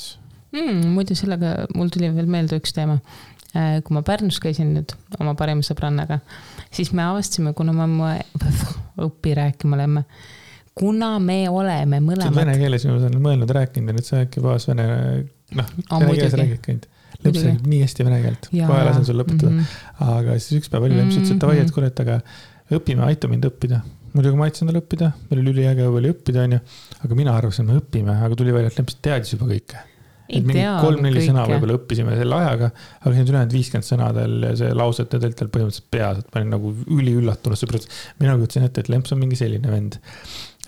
Muidu sellega mul tuli veel meelde üks teema. Kui ma Pärnus käisin nüüd oma parima sõbrannaga, siis me avastasime, kuna ma õppi rääkima lemme, kuna me oleme mõlemad... See vene keeles ma olen mõelnud rääkinud ja nüüd sa äkki paas vene keeles räägid käinud. Lemps räägib nii hästi vene keelt, kohe lasen sul lõpetada. Aga siis üks päev oli Lemps ütles, et ta vaid, et kuule, et aga õpime, aita mind õppida. Muidugi ma aitasin tal õppida, meil oli üliäge oli õppida, aga mina arvasin, et me õpime, aga tuli välja, et Lemps teadis juba kõike. Et mingi 3-4 sõna võib-olla õppisime selle ajaga, aga siin ülejäänud 50 sõnadel ja see lauset ja tal põhimõtteliselt peas, et ma olin nagu üliüllatunud, sõbrad. Mina kutsin ette, et Lemps on mingi selline vend.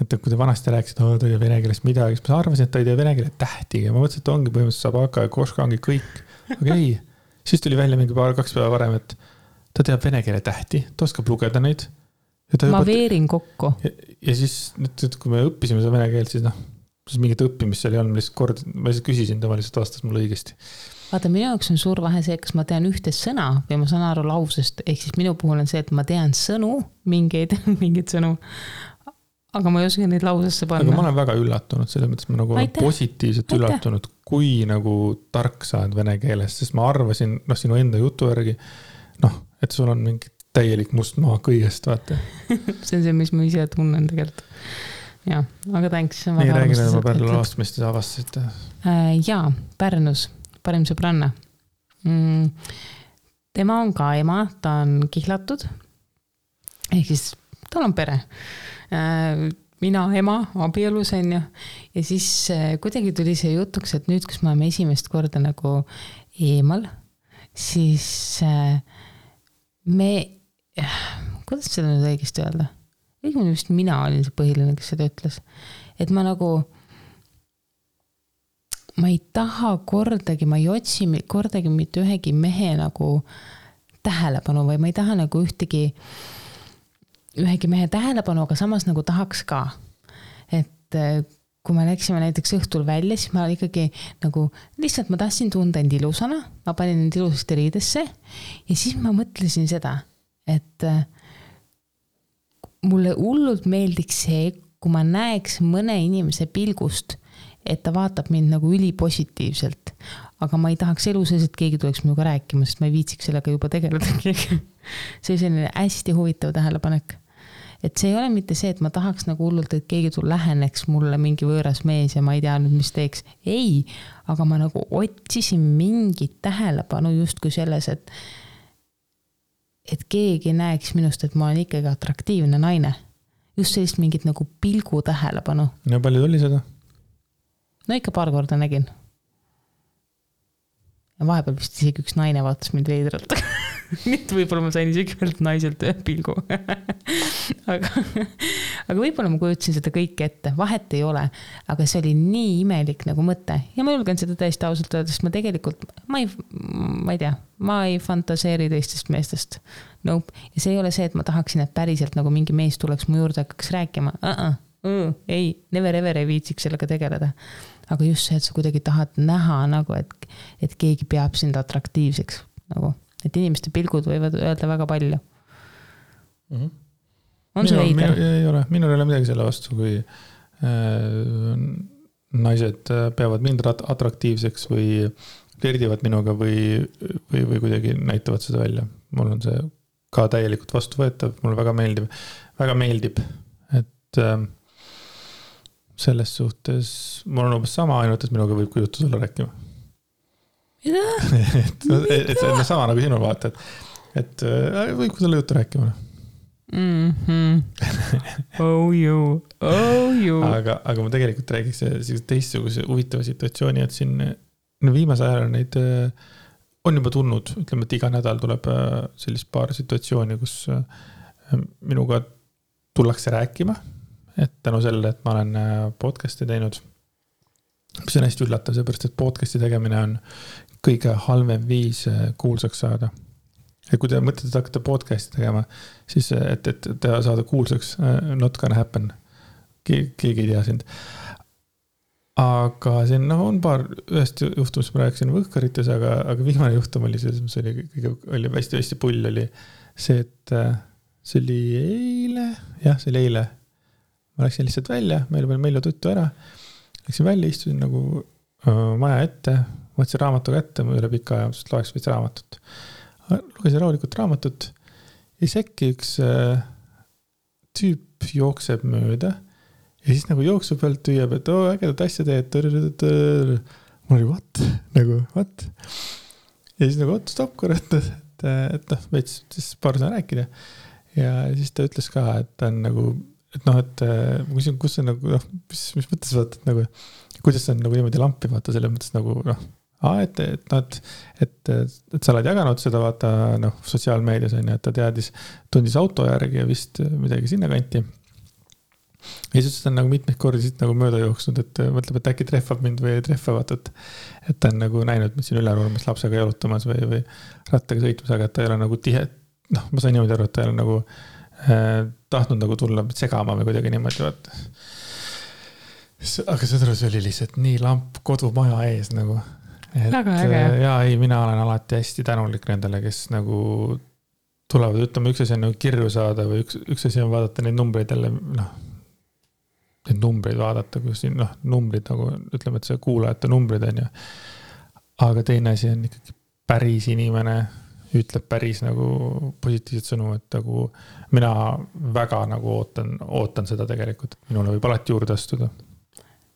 Et kui te vanasti rääkisid, ta ei tea vene keelest midagi, siis ma arvasin, et ta ei tea vene keele tähtiga. Ma mõtlesin, et ongi põhimõtteliselt saab hakka ja koška ongi kõik. Aga ei, siis tuli välja mingi 2 päeva varem, et ta teab vene keele tähti, ta oskab lugeda neid. Ma veerin kokku. Ja siis, kui me õppisime seda vene keelt, siis mingit õppimist seal ei olnud, ma lihtsalt küsisin, ta lihtsalt vastas mulle õigesti. Vaata, minu jaoks on suur vahe see, kas ma tean ühte sõna või ma saan aru lausest, ehk siis minu puhul on see, et ma tean sõnu, mingeid sõnu, aga ma ei oska neid lausesse panna. Aga ma olen väga üllatunud, selles mõttes ma nagu olen positiivselt üllatunud, kui nagu tark saad vene keeles, sest ma arvasin, sinu enda jutu järgi, et sul on mingi täielik must maa kõigest, vaata. See on see, mis ma ise tunnen tegelikult. Jaa, aga thanks. Nii räägime oma Pärnu laast, mis te avastasite? Jaa, Pärnus, parim sõbranna. Tema on ka ema, ta on kihlatud. Ehk siis tal on pere. Mina, ema, abielus on ju. Ja siis kuidagi tuli see jutuks, et nüüd, kus me oleme esimest korda nagu eemal, siis kuidas seda nüüd õigesti öelda? Õigmine vist mina olin see põhiline, kes seda ütles. Et ma nagu, ma ei taha kordagi, ma ei otsi kordagi mitte ühegi mehe nagu tähelepanu või ma ei taha nagu ühegi mehe tähelepanu, aga samas nagu tahaks ka. Et kui me läksime näiteks õhtul välja, siis ma ikkagi nagu, lihtsalt ma tahtsin tunda end ilusana, ma panin end ilusasti riidesse ja siis ma mõtlesin seda, et mulle hullult meeldiks see, kui ma näeks mõne inimese pilgust, et ta vaatab mind nagu ülipositiivselt. Aga ma ei tahaks elu sees, et keegi tuleks minuga rääkima, sest ma ei viitsiks sellega juba tegeleda. See on selline hästi huvitav tähelepanek. et see ei ole mitte see, et ma tahaks nagu hullult, et keegi läheneks mulle mingi võõras mees ja ma ei tea nüüd, mis teeks. Ei, aga ma nagu otsisin mingit tähelepanu justkui selles, et keegi näeks minust, et ma olen ikkagi atraktiivne naine. Just sellist mingit nagu pilgu tähelepanu. Ja palju tuli seda? No ikka paar korda nägin. Ja vahepeal vist isegi üks naine vaatas mind veidralt. Nüüd võib-olla ma sain isegi ühelt naiselt ühe pilgu. aga võib-olla ma kujutasin seda kõike ette. Vahet ei ole, aga see oli nii imelik nagu mõte. Ja ma julgen seda täiesti ausalt öelda, sest ma tegelikult, ma ei tea, ma ei fantaseeri teistest meestest. Nope. Ja see ei ole see, et ma tahaksin, et päriselt nagu mingi mees tuleks mu juurde hakkaks rääkima. Ei, never ever ei viitsiks sellega tegeleda. Aga just see, et sa kuidagi tahad näha nagu, et keegi peab sind atraktiivseks. Nagu, et inimeste pilgud võivad öelda väga palju. On see veider? Ei ole. Minul ei ole midagi selle vastu, kui naised peavad mind atraktiivseks või flirdivad minuga või kuidagi näitavad seda välja. Mul on see ka täielikult vastuvõetav. Mulle väga meeldib, et selles suhtes mul on umbes sama, ainult et minuga võib kui juttu sulle rääkima. et see on sama nagu sinul vaata, et võib kui sulle juttu rääkima. Oh you. Aga ma tegelikult räägiks teistsuguse huvitava situatsiooni, et siin viimase ajal neid on juba tulnud, ütleme, et iga nädal tuleb sellist paar situatsiooni, kus minuga tullakse rääkima. Et tänu selle, et ma olen podcasti teinud, mis on hästi üllatav, seepärast, et podcasti tegemine on kõige halvem viis kuulsaks saada. Ja kui te mõtlete, et hakkate podcasti tegema, siis et te saada kuulsaks, not gonna happen. Keegi ei tea sind. Aga siin on paar ühest juhtumist, ma rääkisin võhkarites, aga viimane juhtum oli see, mis oli hästi pull, oli see, et see oli eile. Jah, see oli eile. Ma läksin lihtsalt välja, meil oli tuttu ära. Läksin välja, istusin nagu maja ette, võtsin raamatu kätte, ma üle pika aja, sest loeks võtsin raamatut. Lugesin rahulikult raamatut ja äkki üks tüüp jookseb mööda ja siis nagu jooksu pealt tüüab, et ägedat asja teed. Mul oli what? Ja siis nagu stopp korrat, et veits siis paar sõna rääkida. Ja siis ta ütles ka, et ta on nagu et ma küsin, kus on nagu, mis mõttes vaata, et nagu, kuidas on nagu niimoodi lampi vaata, selle mõttes nagu, et sa oled jaganud seda vaata, sotsiaalmeedias on, et ta tundis auto järgi ja vist midagi sinna kanti. Ja siis ta on nagu mitmeid kordi siit nagu mööda jooksnud, et mõtleb, et äkki treffab mind või ei treffa vaata, et ta on nagu näinud, et siin ülerurmas lapsega jalutamas või rattaga sõitmas, aga et ta ei ole nagu tihe, ma sain niimoodi aru, et ta ei ole nagu tahtnud nagu tulla segama või kuidagi niimoodi vaata. Aga see oli lihtsalt nii lamp kodumaja ees nagu. Väga äge. Ja ei, mina olen alati hästi tänulik nendele, kes nagu tulevad, ütleme, üks asi on nagu kirju saada või üks asi on vaadata neid numbreid jälle, neid numbreid vaadata, kus siin, numbrid nagu, ütleme, et see kuulajate numbrid on ja. Aga teine asi on ikkagi päris inimene, ütleb päris nagu positiivset sõnu, et nagu mina väga nagu ootan seda tegelikult, et minule võib alati juurde astuda.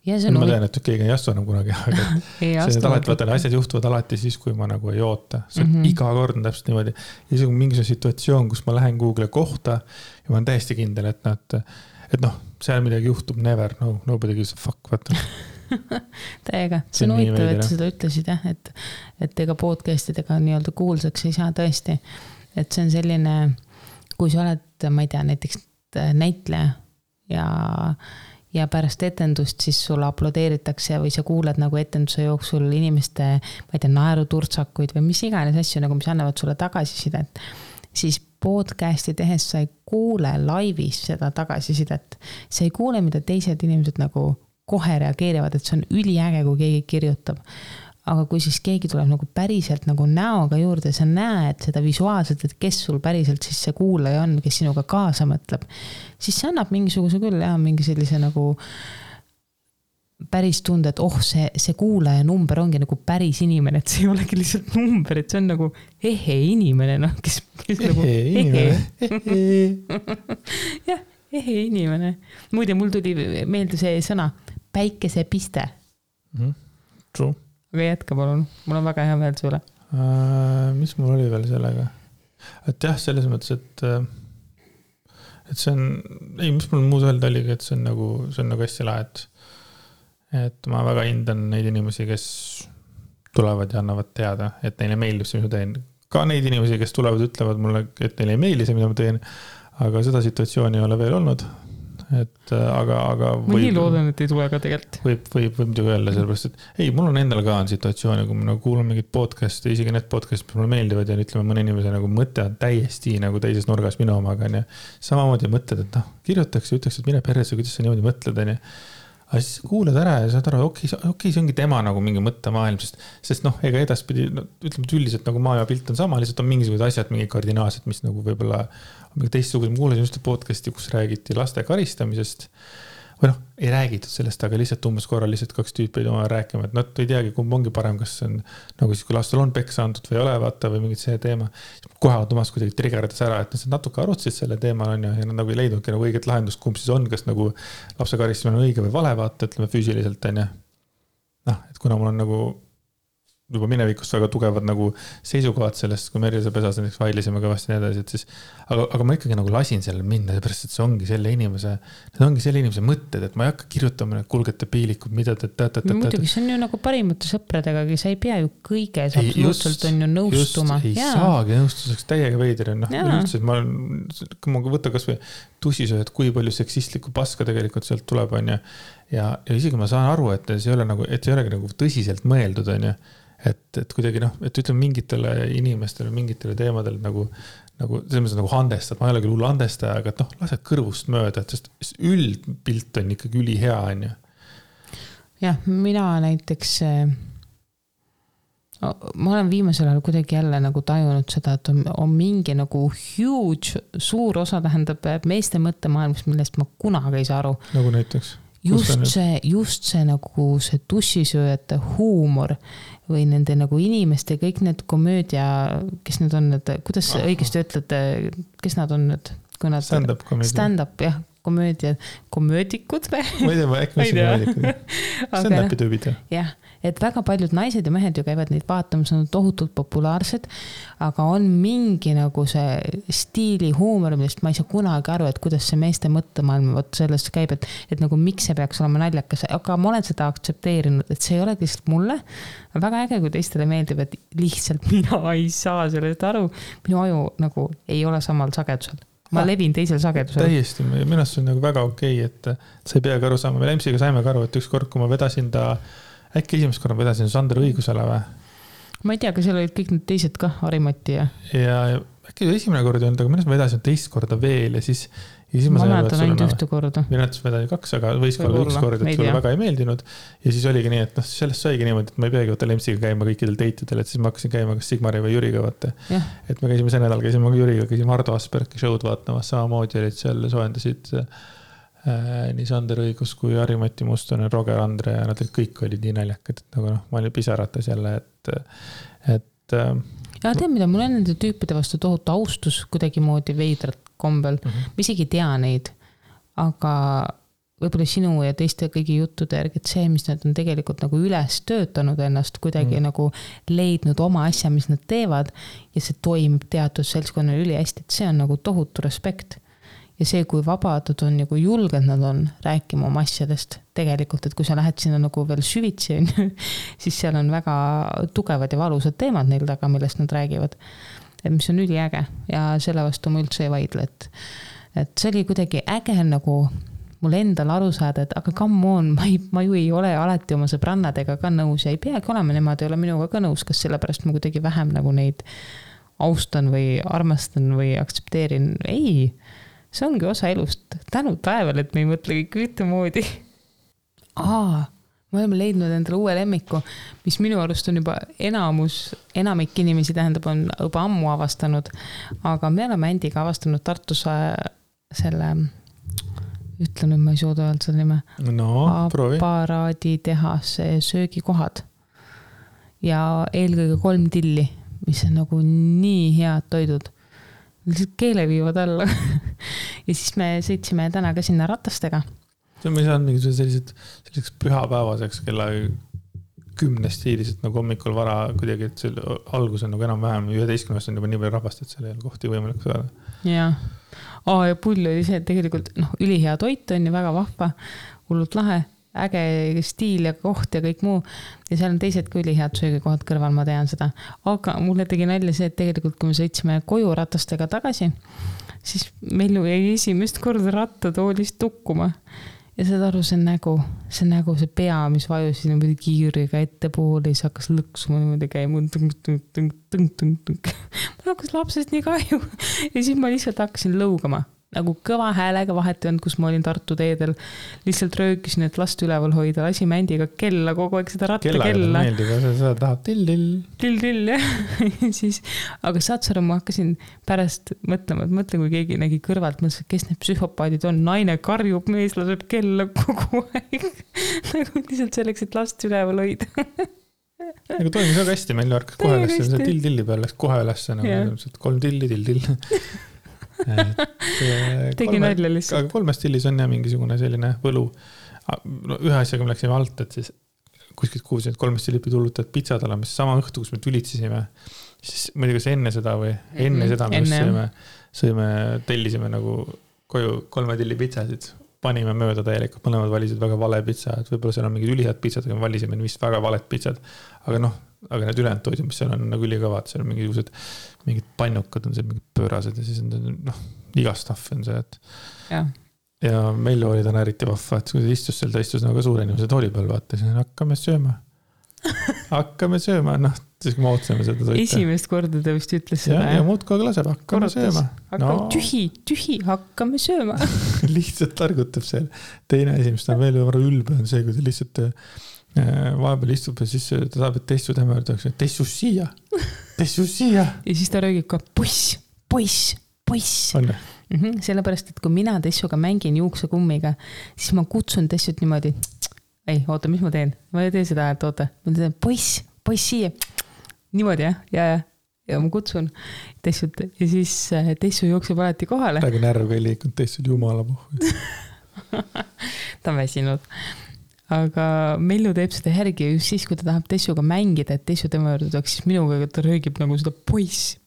Ma tean, et keegi ei astu enam kunagi, aga asjad juhtuvad alati siis, kui ma nagu ei oota. See on iga kord on täpselt niimoodi. Ja see on mingisugune situatsioon, kus ma lähen Google kohta ja ma olen täiesti kindel, et seal midagi juhtub, never, nobody gives a fuck, vaata. Täiega, see on huvitav, et seda ütlesid, et ega podcastidega nii-öelda kuulsaks ei saa tõesti. Et see on selline, kui sa oled, ma ei tea, näiteks näitleja ja pärast etendust siis sulle aplodeeritakse või sa kuuled nagu etenduse jooksul inimeste, ma ei tea, naeruturtsakuid või mis iganes asju, nagu mis annavad sulle tagasisidet, siis podcasti tehes sa ei kuule laivis seda tagasisidet. Sa ei kuule, mida teised inimesed nagu kohe reageerivad, et see on üliäge, kui keegi kirjutab. Aga kui siis keegi tuleb nagu päriselt nagu näoga juurde, sa näed seda visuaalselt, et kes sul päriselt siis see kuulaja on, kes sinuga kaasa mõtleb, siis see annab mingisuguse küll mingi sellise nagu päris tunde, et see kuulaja number ongi nagu päris inimene, et see ei olegi lihtsalt number, et see on nagu inimene, kes nagu inimene. jah, ehe inimene. Muide, mul tuli meelde see sõna päikesepiste. True. Aga jätka palun, mul on väga hea meel sulle. Mis mul oli veel sellega? Et jah, selles mõttes, et see on, ei, mis mul muud öelda oligi, et see on nagu hästi lahe, et ma väga hindan neid inimesi, kes tulevad ja annavad teada, et neile meeldib see, mida teen. Ka neid inimesi, kes tulevad, ütlevad mulle, et neile ei meeldi see, mida ma teen, aga seda situatsiooni ei ole veel olnud. Et aga ma nii loodan, et ei tule ka tegelikult. Võib muidugi öelda sellepärast, et ei, mul on endal ka on situatsiooni, kui ma nagu kuulan mingit podcasti, isegi need podcastid, mis mulle meeldivad ja ütleme mõne inimese nagu mõte on täiesti nagu teises nurgas minu omaga. Samamoodi mõtled, et kirjutaks ja ütleks, et mine perresse, kuidas sa niimoodi mõtled. Aga siis kuulad ära ja saad aru, okei, see ongi tema nagu mingi mõttemaailm, sest ega edaspidi, ütleme, et üldiselt nagu maailma pilt on sama, lihtsalt on mingisugused asjad, mingi kardinaalsed, mis nagu võib-olla on mingi teistsugused. Ma kuulasin just podcasti, kus räägiti laste karistamisest või ei räägitud sellest, aga lihtsalt umbes korral lihtsalt 2 tüüpi ei tule rääkima, et nad ei teagi, kumb ongi parem, kas see on nagu siis, kui lastel on peksa antud või ei ole, vaata, või mingit see teema. Kohe automaas kuidagi triggerdas ära, et nad natuke arutsid selle teemal on ja nad nagu ei leidnudki nagu õiget lahendust, kumb siis on, kas nagu lapse karistamine on õige või vale, vaata, ütleme füüsiliselt on ja et kuna mul on nagu juba minevikust väga tugevad nagu seisukohad sellest, kui Merjase pesas näiteks vaidlisime kõvasti nii edasi, et siis, aga ma ikkagi nagu lasin sellele minna, seepärast, et see ongi selle inimese mõtted, et ma ei hakka kirjutama kulgete piilikud, mida muidugi, see on ju nagu parimate sõpradega, sa ei pea ju kõiges absoluutselt on ju nõustuma. Ei saagi nõustuseks täiega veider. Kui ma võtta kas või tussisööd, kui palju seksistlikku paska tegelikult sealt tuleb on ja isegi ma saan aru, et see ei ole nagu tõsiselt mõeldud on ju. Et kuidagi et ütleme mingitele inimestele, mingitele teemadele nagu selles mõttes nagu handestad, ma ei ole küll hull handestaja, aga lased kõrvust mööda, et sest üldpilt on ikkagi ülihea on ju. Jah, mina näiteks ma olen viimasel ajal kuidagi jälle nagu tajunud seda, et on mingi nagu huge, suur osa tähendab meeste mõttemaailmast, millest ma kunagi ei saa aru. Nagu näiteks? Just see nagu see tussisööjate huumor või nende nagu inimeste, kõik need komöödia, kes need on, kuidas õigesti ütlete, kes nad on nüüd? Stand-up komöödia. Stand-up, jah, komöödikud. Ma ei tea, äkki ma siin komöödikud. Stand-upi tüübid. Jah, et väga paljud naised ja mehed ju käivad neid vaatamas, on tohutult populaarsed, aga on mingi nagu see stiili huumor, millest ma ei saa kunagi aru, et kuidas see meeste mõttemaailm sellest käib, et nagu miks see peaks olema naljakas, aga ma olen seda aktsepteerinud, et see ei ole lihtsalt mulle. Väga äge, kui teistele meeldib, et lihtsalt mina ei saa sellest aru. Minu aju nagu ei ole samal sagedusel. Ma levin teisel sagedusel. Täiesti, minu arust on nagu väga okei, et sa ei peagi aru saama. Me Lemsiga saime ka aru, et ükskord, kui ma vedasin äkki esimest korda vedasin Sander õigusele või? Ma ei tea, kas seal olid kõik need teised ka, Harimati ja äkki esimene kord ei olnud, aga minu vedasin teist korda veel ja siis ma mäletan ainult ühte korda. Minu näitus vedasin 2, aga võis ka olla 1 kord, et sulle väga ei meeldinud ja siis oligi nii, et sellest saigi niimoodi, et ma ei peagi võtta Lemsiga käima kõikidel teitidel, et siis ma hakkasin käima kas Sigmari või Jüriga vaata. Et me käisime see nädal, käisime Jüriga, käisime Ardo Aspergi show'd vaatamas, samamoodi olid seal soojendasid nii Sander Õigus kui Harimati Mustonen, Roger Andre ja nad kõik olid nii naljakad, et nagu ma olin pisaratas jälle, et ja tead, mida mul on nende tüüpide vastu tohutu austus kuidagi moodi veidrat kombel. Ma isegi tea neid, aga võib-olla sinu ja teiste kõigi juttude järgi, et see, mis nad on tegelikult nagu üles töötanud ennast, kuidagi nagu leidnud oma asja, mis nad teevad ja see toimib teatud seltskonnal üli hästi, et see on nagu tohutu respekt. Ja see, kui vabadud on ja kui julged nad on rääkima oma asjadest tegelikult, et kui sa lähed sinna nagu veel süvitsi, siis seal on väga tugevad ja valusad teemad neil taga, millest nad räägivad. Et mis on üliäge ja selle vastu ma üldse ei vaidle, et see oli kuidagi äge nagu mul endal aru saada, et aga come on, ma ju ei ole alati oma sõbrannadega ka nõus ja ei peagi olema, nemad ei ole minuga ka nõus, kas sellepärast ma kuidagi vähem nagu neid austan või armastan või aktsepteerin. Ei, see ongi osa elust. Tänu taeval, et me ei mõtle kõik ühtemoodi. Me oleme leidnud endale uue lemmiku, mis minu arust on juba enamik inimesi tähendab, on juba ammu avastanud, aga me oleme Andiga avastanud Tartus selle, ütlen nüüd, ma ei suuda öelda selle nime, aparaaditehase söögikohad ja eelkõige 3 tilli, mis on nagu nii head toidud. Lihtsalt keele viivad alla. ja siis me sõitsime täna ka sinna ratastega. See on me saanud mingi selliseks pühapäevaseks kella 10 stiiliselt nagu hommikul vara kuidagi, et see algus on nagu enam-vähem 11 on juba nii palju rahvast, et seal ei ole kohti võimalik saada. Jah. Ja pull oli see, et tegelikult ülihea toit on ja väga vahva, hullult lahe, äge stiil ja koht ja kõik muu. Ja seal on teised ka ülihead söögikohad kõrval, ma tean seda. Aga mulle tegi nalja see, et tegelikult kui me sõitsime koju ratastega tagasi, siis meil jäi esimest korda rattatoolist tukkuma. Ja saad aru, see nägu, see pea, mis vajus niimoodi kiiriga ettepoole, siis hakkas lõksuma niimoodi käima. Ma hakkas lapsest nii kahju. Ja siis ma lihtsalt hakkasin lõugama. Nagu kõva häälega vahet ei olnud, kus ma olin Tartu teedel. Lihtsalt röökisin, et last üleval hoida. Lasi mändiga kella, kogu aeg seda rattakella. Kellaga meeldib, seda tahab till-till. Till-till, jah. Siis, aga saad sa aru, ma hakkasin pärast mõtlema, et mõtle, kui keegi nägi kõrvalt, mõtles, kes need psühhopaadid on. Naine karjub, mees laseb kella kogu aeg. Nagu lihtsalt selleks, et last üleval hoida. Nagu toimis väga hästi, meil harkas kohe üles, see till-tilli peal läks kohe üles, nagu 3 tilli, till-till. Tegi nalja lihtsalt. Aga 3 stillis on jah mingisugune selline võlu. Ühe asjaga me läksime alt, et siis kuskilt kuulsin, et 3 stilli pidi hullutad pitsad olema, siis sama õhtu, kus me tülitsisime, siis ma ei tea, kas enne seda või enne seda me sõime, tellisime nagu koju 3 tilli pitsasid, panime mööda täielikult, mõlemad valisid väga vale pitsa, et võib-olla seal on mingid ülihad pitsad, aga me valisime vist väga valet pitsad, aga need ülejäänud toidud, mis seal on nagu ülikõvad, seal on mingid pannukad on seal, mingid pöörased ja siis on iga stuff on see, et ja meil oli täna eriti vahva, et kui ta istus seal nagu suure inimese tooli peal, vaata, siis hakkame sööma, siis kui me ootsime seda toita. Esimest korda ta vist ütles seda. Ja muud kogu laseb, hakkame sööma. Tühi, hakkame sööma. Lihtsalt targutab seal. Teine asi, mis ta on veel ülbe, on see, kui ta lihtsalt vahepeal istub ja siis ta saab, et tessu tema öeldakse, tessu siia. Ja siis ta röögib ka poiss. On. Sellepärast, et kui mina tessuga mängin juuksekummiga, siis ma kutsun tessut niimoodi. Ei, oota, mis ma teen? Ma ei tee seda, et oota. Ma teen poiss siia. Niimoodi, jah? Ja ma kutsun tessut ja siis tessu jookseb alati kohale. Praegu närv ei liikunud tessud jumala puhul. Ta on väsinud. Aga Mellu teeb seda järgi just siis, kui ta tahab tessuga mängida, et tessu tema juurde tuleks, siis minuga ta röögib nagu seda poiss.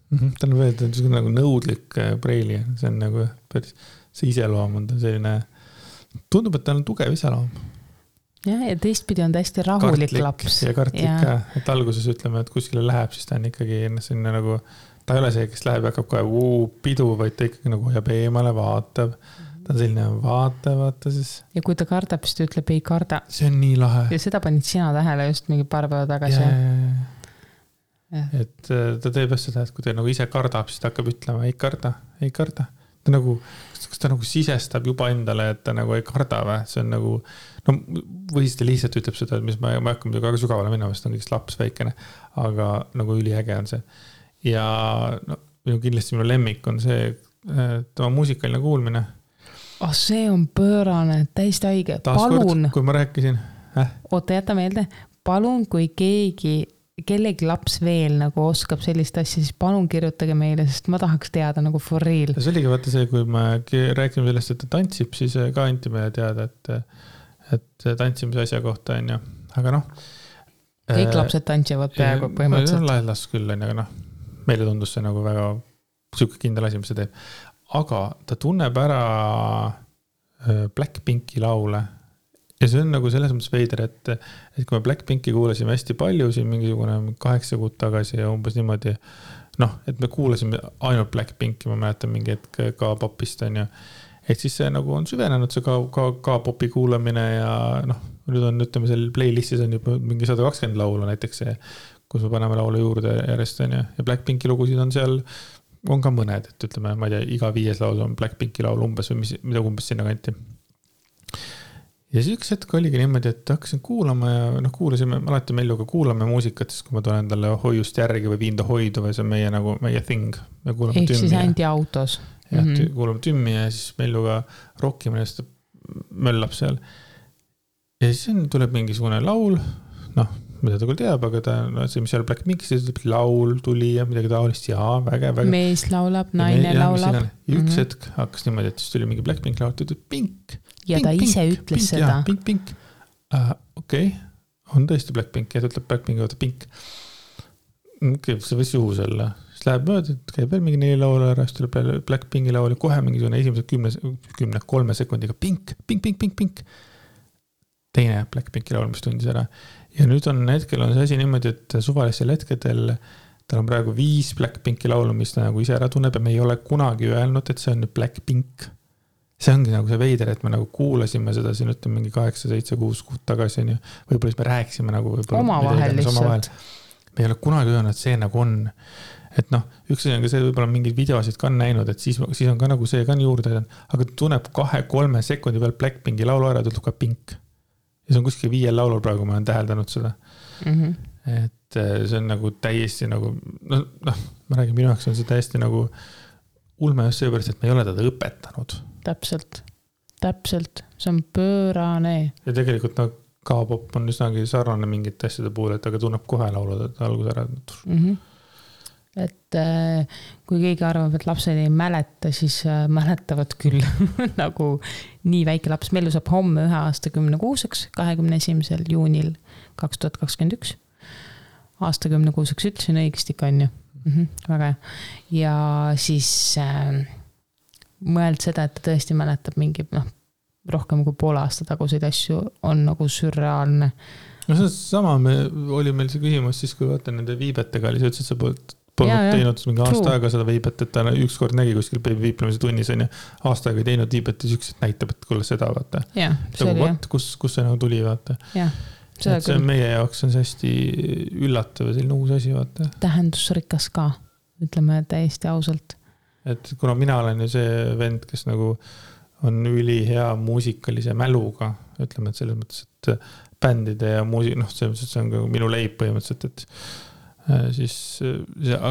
Ta on veel nagu nõudlik preili. See on nagu päris, see iseloom on ta selline, tundub, et ta on tugev iseloom. Ja teistpidi on ta hästi rahulik laps. Ja kartlik ka, et alguses ütleme, et kuskile läheb, siis ta on ikkagi selline nagu, ta ei ole see, kes läheb ja hakkab kohe pidu, vaid ta ikkagi nagu hoiab eemale, vaatab. Ta on selline vaata siis. Ja kui ta kardab, siis ta ütleb ei karda. See on nii lahe. Ja seda panid sina tähele just mingi paar päeva tagasi. Ja. Et ta teeb just seda, et kui ta nagu ise kardab, siis ta hakkab ütlema ei karda. Ta nagu, kas ta nagu sisestab juba endale, et ta nagu ei karda või? See on nagu, või siis ta lihtsalt ütleb seda, et mis ma hakkan väga sügavale minna, sest on kõigist laps väikene, aga nagu üliäge on see. Ja kindlasti minu lemmik on see, tema muusikaline kuulmine. See on pöörane, täiesti haige. Palun. Kui ma rääkisin. Oota, jäta meelde. Palun, kui kellegi laps veel nagu oskab sellist asja, siis palun kirjutage meile, sest ma tahaks teada nagu for real. See oligi vaata see, kui me rääkime sellest, et ta tantsib, siis ka anti meile teada, et tantsimise asja kohta on ju. Aga kõik lapsed tantsivad peaaegu põhimõtteliselt. Lahelas küll on, aga meile tundus see nagu väga siuke kindel asi, mis see teeb. Aga ta tunneb ära Blackpinki laule. Ja see on nagu selles mõttes veider, et kui me Blackpinki kuulasime hästi palju siin mingisugune 8 kuud tagasi ja umbes niimoodi, et me kuulasime ainult Blackpinki, ma mäletan mingi hetk ka popist on ju. Et siis see nagu on süvenenud see ka popi kuulamine ja nüüd on, ütleme, seal playlistis on juba mingi 120 laulu näiteks see, kus me paneme laulu juurde järjest on ju. Ja Blackpinki lugusid on seal on ka mõned, et ütleme, ma ei tea, iga 5 laul on Blackpinki laul umbes või mida umbes sinna kanti. Ja siis üks hetk oligi niimoodi, et hakkasin kuulama ja kuulasime, alati Melluga kuulame muusikat, siis kui ma tulen talle hoiust järgi või viin ta hoidu või see on meie thing. Ehk siis ainti autos. Ja kuulame tümmi ja siis Melluga rockime ja möllab seal. Ja siis tuleb mingisugune laul, mida ta küll teab, aga ta, no see, mis seal Blackpinkis, laul tuli ja midagi taolist, jaa, väge. Mees laulab, naine laulab. Üks hetk hakkas niimoodi, et siis tuli mingi Blackpink laul, ta ütles pink. Ja ta ise ütles seda. Pink. Okei, on tõesti Blackpink ja ta ütleb Blackpinki võtta pink. See võis juhus olla. Siis läheb mööda, et käib veel mingi 4 laulu ära, siis tuleb Blackpinki laul ja kohe mingisugune esimese 10-3 sekundiga pink. Teine Blackpinki laul, mis tundis ära. Ja nüüd hetkel on see asi niimoodi, et suvalisel hetkedel tal on praegu 5 Blackpinki laulu, mis ta nagu ise ära tunneb ja me ei ole kunagi öelnud, et see on Blackpink. See ongi nagu see veider, et me nagu kuulasime seda siin ütleme mingi 8, 7, 6 kuud tagasi. Võib-olla siis me rääkisime nagu omavahel lihtsalt. Me ei ole kunagi öelnud, et see nagu on. Et üks asi on ka see, võib-olla mingeid videosid ka on näinud, et siis on ka nagu see ka juurde, aga ta tunneb 2-3 sekundi peal Blackpinki laulu ära, ta ütleb ka pink. Ja see on kuskil 5 laulul praegu, ma olen täheldanud seda. Et see on nagu täiesti nagu, ma räägin, minu jaoks on see täiesti nagu ulme just seepärast, et me ei ole teda õpetanud. Täpselt. See on pöörane. Ja tegelikult K-pop on üsnagi sarnane mingite asjade puhul, et aga tunneb kohe laulud, et algus ära. Et kui keegi arvab, et lapsed ei mäleta, siis mäletavad küll nagu nii väike laps. Mellu saab homme 1 aasta 10 kuuseks, 21. juunil 2021. Aasta 10 kuuseks ütlesin õigesti on ju. Väga hea. Ja siis mõeld seda, et ta tõesti mäletab mingi rohkem kui pool aasta taguseid asju on nagu sürreaalne. No see sama oli meil see küsimus siis, kui vaata nende viibetega oli, see ütles, et sa polnud teinud mingi aasta aega seda viibet, et ta ükskord nägi kuskil viiplemise tunnis on ja aasta aega ei teinud viibet ja sükselt näitab, et kuule seda vaata. Kus see nagu tuli vaata. See meie jaoks on see hästi üllatav ja selline uus asi vaata. Tähendusrikas ka, ütleme täiesti ausalt. Et kuna mina olen ju see vend, kes nagu on üli hea muusikalise mäluga, ütleme, et selles mõttes, et bändide ja see on ka minu leib põhimõtteliselt, et siis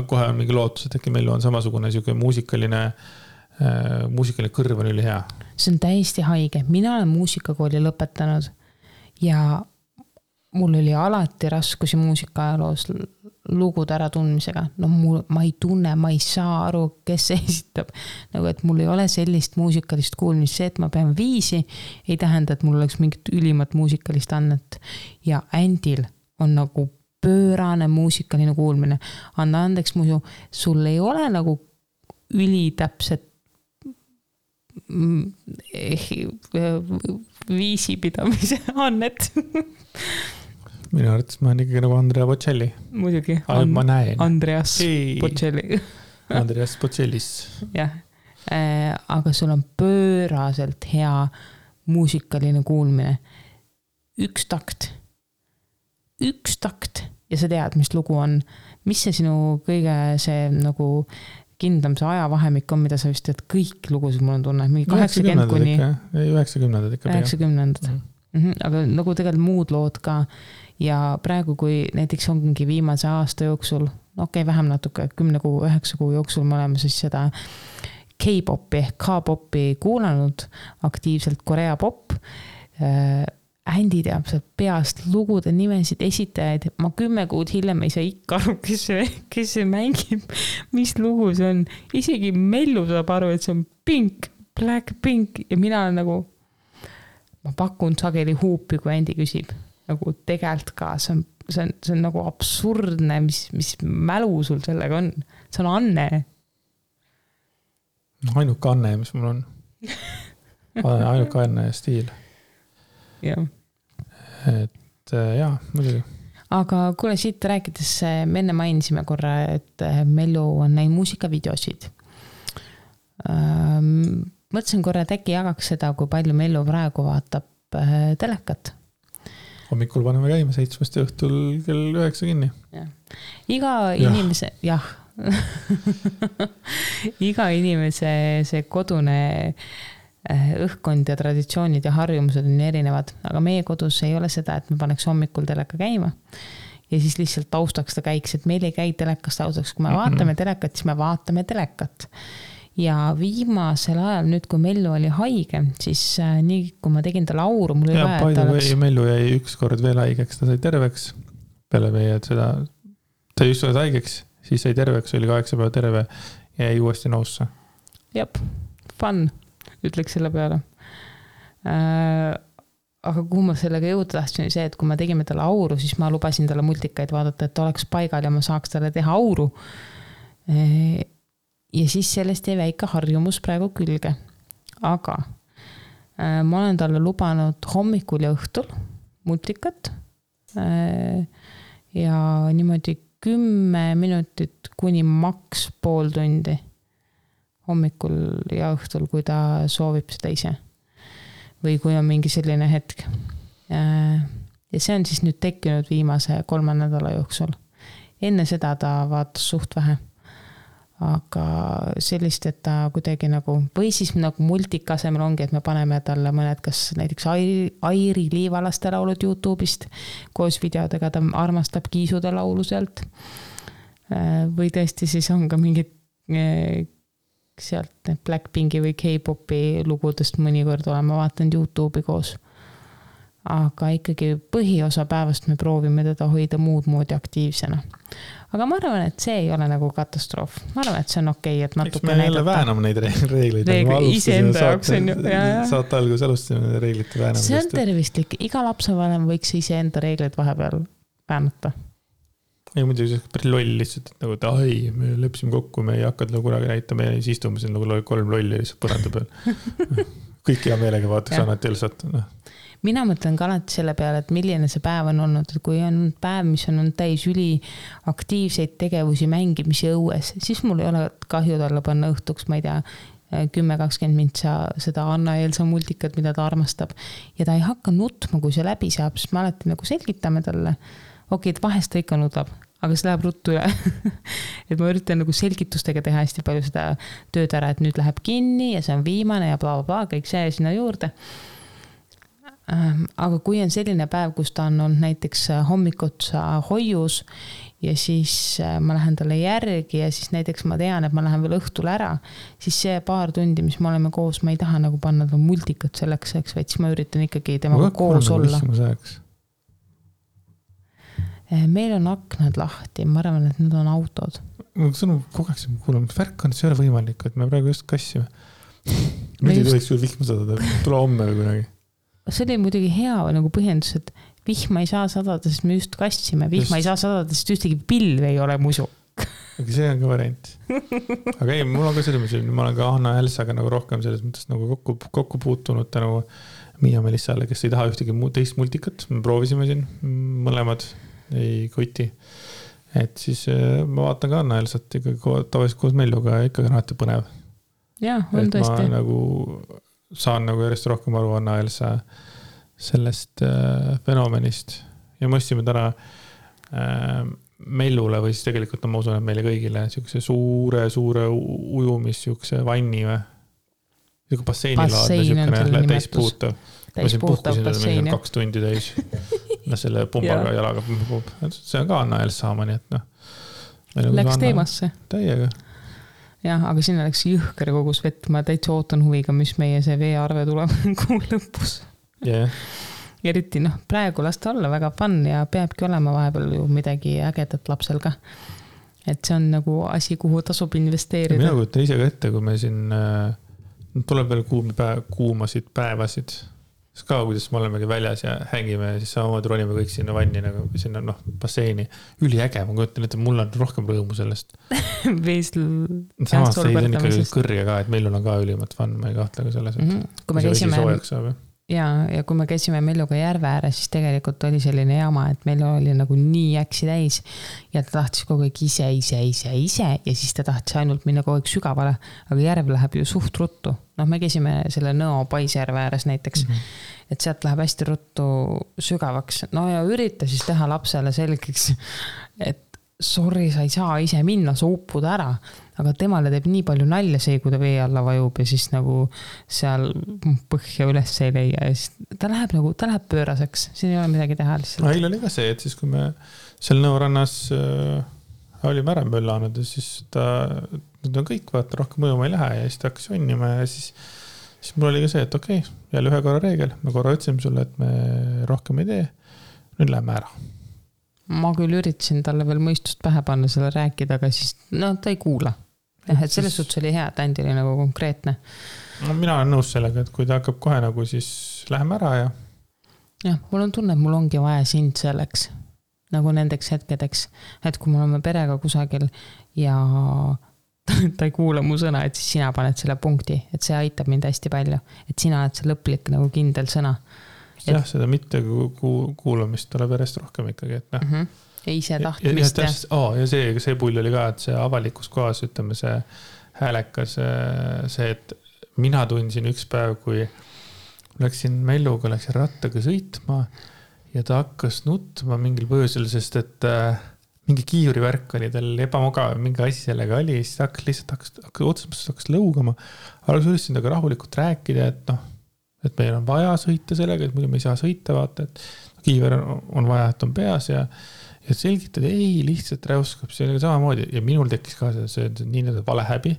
kohe on mingi lootus, et äkki meil on samasugune muusikaline kõrv on üli hea. See on täiesti haige. Mina olen muusikakooli lõpetanud ja mul oli alati raskusi muusikaajaloos lugude ära tundmisega. Ma ei tunne, ma ei saa aru, kes esitab. Nagu, et mul ei ole sellist muusikalist kuulmist. See, et ma pean 5, ei tähenda, et mul oleks mingit ülimat muusikalist annet. Ja Andil on nagu pöörane muusikaline kuulmine. Anna andeks muidu, sul ei ole nagu ülitäpset viisipidamise annet. Minu arvates ma olen ikkagi nagu Andrea Bocelli. Muidugi. Ma näen. Andreas Bocelli. Andreas Bocellis. Jah. Aga sul on pööraselt hea muusikaline kuulmine. Üks takt ja sa tead, mis lugu on. Mis see sinu kõige see nagu kindlam see ajavahemik on, mida sa vist tead kõik lugusid mul on tunne. 80 kuni 90 ikka. 90. Aga nagu tegelikult muud lood ka. Ja praegu, kui näiteks ongi viimase aasta jooksul, vähem natuke, 10 kuu, 9 kuu jooksul me oleme siis seda K-popi ehk K-popi kuulanud aktiivselt, Korea pop. Andy teab sealt peast lugude nimesid esitajaid. Ma 10 kuud hiljem ei saa ikka aru, kes see mängib, mis lugu see on. Isegi Mellu saab aru, et see on Pink, Blackpink ja mina olen nagu, ma pakun sageli huupi, kui Andy küsib. Nagu tegelt ka, see on nagu absurdne, mis mälu sul sellega on. See on Anne. Ainuke Anne, mis mul on. Ainuke Anne stiil. Jah. Et jaa, muidugi. Aga kuule, siit rääkides me enne mainisime korra, et Mellu on näinud muusikavideosid. Mõtlesin korra, et äkki jagaks seda, kui palju Mellu praegu vaatab telekat. Hommikul paneme käima 7 õhtul kell 9 kinni. Iga inimese, jah. Iga inimese see kodune õhkkond ja traditsioonid ja harjumused on erinevad, aga meie kodus ei ole seda, et me paneks hommikul teleka käima ja siis lihtsalt taustaks ta käiks, et meil ei käi telekast taustaks, kui me vaatame telekat, siis me vaatame telekat. Ja viimasel ajal nüüd, kui Mellu oli haige, siis nii kui ma tegin ta lauru, mul oli vaja, et Mellu jäi ükskord veel haigeks, ta sai terveks peale meie seda, ta just oled haigeks, siis sai terveks, oli 8 päeva terve ja jäi uuesti nousse. Jep, fun, ütleks selle peale. Aga kuhu ma sellega jõuda tahtsin, oli see, et kui me tegime talle auru, siis ma lubasin talle multikaid vaadata, et ta oleks paigal ja ma saaks talle teha auru. Ja siis sellest jäi väike harjumus praegu külge. Aga ma olen talle lubanud hommikul ja õhtul multikat ja niimoodi 10 minutit kuni maks pool tundi hommikul ja õhtul, kui ta soovib seda ise. Või kui on mingi selline hetk. Ja see on siis nüüd tekkinud viimase 3 nädala jooksul. Enne seda ta vaatas suht vähe. Aga sellist, et ta kuidagi nagu, või siis nagu multika asemel ongi, et me paneme talle mõned, kas näiteks Airi Liivalaste laulud YouTube'ist koos videodega, ta armastab Kiisude laulu sealt. Või tõesti siis on ka mingid sealt Blackpinki või K-popi lugudest mõnikord oleme vaatanud YouTube'i koos. Aga ikkagi põhiosa päevast me proovime teda hoida muud moodi aktiivsena. Aga ma arvan, et see ei ole nagu katastroof. Ma arvan, et see on okei, et natuke näidata. Eks me jälle vääname neid reegleid. Ise enda jaoks on ju. Saate algus alustasime reeglite väänamist. See on tervistlik. Iga lapsevanem võiks ise enda reegleid vahepeal väänata. Ei muidugi see päris loll lihtsalt, et nagu, et me lepsime kokku, me ei hakka kunagi näitama ja siis istume siin nagu 3 lolli lihtsalt põranda peal. Kõik hea meelega vaataks annati Elsat. Mina mõtlen ka alati selle peale, et milline see päev on olnud, et kui on päev, mis on täis üli aktiivseid tegevusi, mängimisi õues, siis mul ei ole kahju talle panna õhtuks, ma ei tea, 10-20 mintsa seda Anna-Elsa multikat, mida ta armastab. Ja ta ei hakka nutma, kui see läbi saab, sest me alati nagu selgitame talle. Okei, et vahest ta ikka nutab, aga see läheb ruttu üle. Et ma üritan nagu selgitustega teha hästi palju seda tööd ära, et nüüd läheb kinni ja see on viimane ja bla, bla, bla, kõik see sinna juurde. Aga kui on selline päev, kus ta on olnud näiteks hommikutsa hoius ja siis ma lähen talle järgi ja siis näiteks ma tean, et ma lähen veel õhtul ära, siis see paar tundi, mis me oleme koos, ma ei taha nagu panna ta multikat selleks, vaid siis ma üritan ikkagi temaga koos olla. Meil on aknad lahti, ma arvan, et need on autod. See on kogeks, kuulame, värk on, see ei ole võimalik, et me praegu just kassime. Nüüd ei tohiks küll vihma sadada, tule homme või kunagi. See oli muidugi hea nagu põhjendus, et vihma ei saa sadada, sest me just kassime. Vihma ei saa sadada, sest ühtegi pilve ei ole musu. Aga see on ka variant. Aga ei, mul on ka selles mõttes, ma olen ka Anna-Elsaga nagu rohkem selles mõttes nagu kokku puutunud tänu Miia Melissale, kes ei taha ühtegi teist multikat. Me proovisime siin mõlemad, ei koti. Et siis ma vaatan ka Anna-Elsat ikka tavaliselt koos Melluga ja ikka alati põnev. Ja, on tõesti. Ma nagu saan nagu järjest rohkem aru Anna-Elsa sellest fenomenist ja mõistsime täna Mellule või siis tegelikult ma usun, et meile kõigile siukse suure ujumis siukse vanni või siuke basseinilaadne siukene täispuutav. Täispuhtav bassein. 2 tundi täis. Selle pumbaga jalaga. See on ka Anna-Elsa sama, nii et Läks teemasse. Täiega. Jah, aga sinna läks jõhker kogus vett. Ma täitsa ootan huviga, mis meie see veearve tuleb kuu lõpus. Yeah. Eriti praegu lasta olla väga fun ja peabki olema vahepeal ju midagi ägedat lapsel ka. Et see on nagu asi, kuhu tasub investeerida. Mina kujutan ise ka ette, kui me siin tuleb veel kuumasid päevasid. Siis ka, kuidas me olemegi väljas ja hängime ja siis samamoodi ronime kõik sinna vanni, nagu sinna basseini. Üliäge, ma kujutan, et mul on rohkem rõõmu sellest. Samas see on ikka kõrge ka, et meil on ka ülimalt fun, ma ei kahtle ka selles, et kui me käisime ja kui me käisime Melluga järve ääre, siis tegelikult oli selline jama, et meil oli nagu nii äksi täis ja ta tahtis kogu aeg ise ja siis ta tahtis ainult minna kogu aeg sügavale, aga järv läheb ju suht ruttu. Me käisime selle Nõo Paisjärve ääres näiteks, et sealt läheb hästi ruttu sügavaks. Ja ürita siis teha lapsele selgeks, et sorry, sa ei saa ise minna, sa uppud ära, aga temale teeb nii palju nalja see, kui ta vee alla vajub ja siis nagu seal põhja üles ei leia ja siis ta läheb pööraseks, siin ei ole midagi teha lihtsalt. Eile oli ka see, et siis kui me seal Nõorannas olime ära möllanud ja siis nüüd on kõik, vaata, rohkem mõjuma ei lähe ja siis ta hakkas jonnima ja siis mul oli ka see, et okei, jälle 1 korra reegel, me korra ütlesime sulle, et me rohkem ei tee, nüüd läheme ära. ma küll üritasin talle veel mõistust pähe panna selle rääkida, aga siis ta ei kuula. Et selles suhtes oli hea, et Andi oli nagu konkreetne. No, mina olen nõus sellega, et kui ta hakkab kohe nagu siis läheme ära ja... Jah, mul on tunne, et mul ongi vaja sind selleks, nagu nendeks hetkedeks, et kui me oleme perega kusagil ja ta ei kuula mu sõna, et siis sina paned selle punkti, et see aitab mind hästi palju, et sina oled see lõplik nagu kindel sõna. Jah, seda mitte kuulamist tuleb järjest rohkem ikkagi, et noh. Ja ise tahtmist. Ja see pull oli ka, et see avalikus kohas, ütleme see häälekas, see, et mina tundsin üks päev, kui läksin Melluga, läksin rattaga sõitma ja ta hakkas nutma mingil põhjusel, sest et mingi kiivurivärk oli tal ebamugav, mingi asi sellega oli, siis ta hakkas lõugama, aga ma üritasin temaga rahulikult rääkida, et meil on vaja sõita sellega, et muidu me ei saa sõita, vaata, et kiiver on vaja, et on peas ja selgitad, ei, lihtsalt räuskab, see oli samamoodi ja minul tekkis ka see nii vale häbi,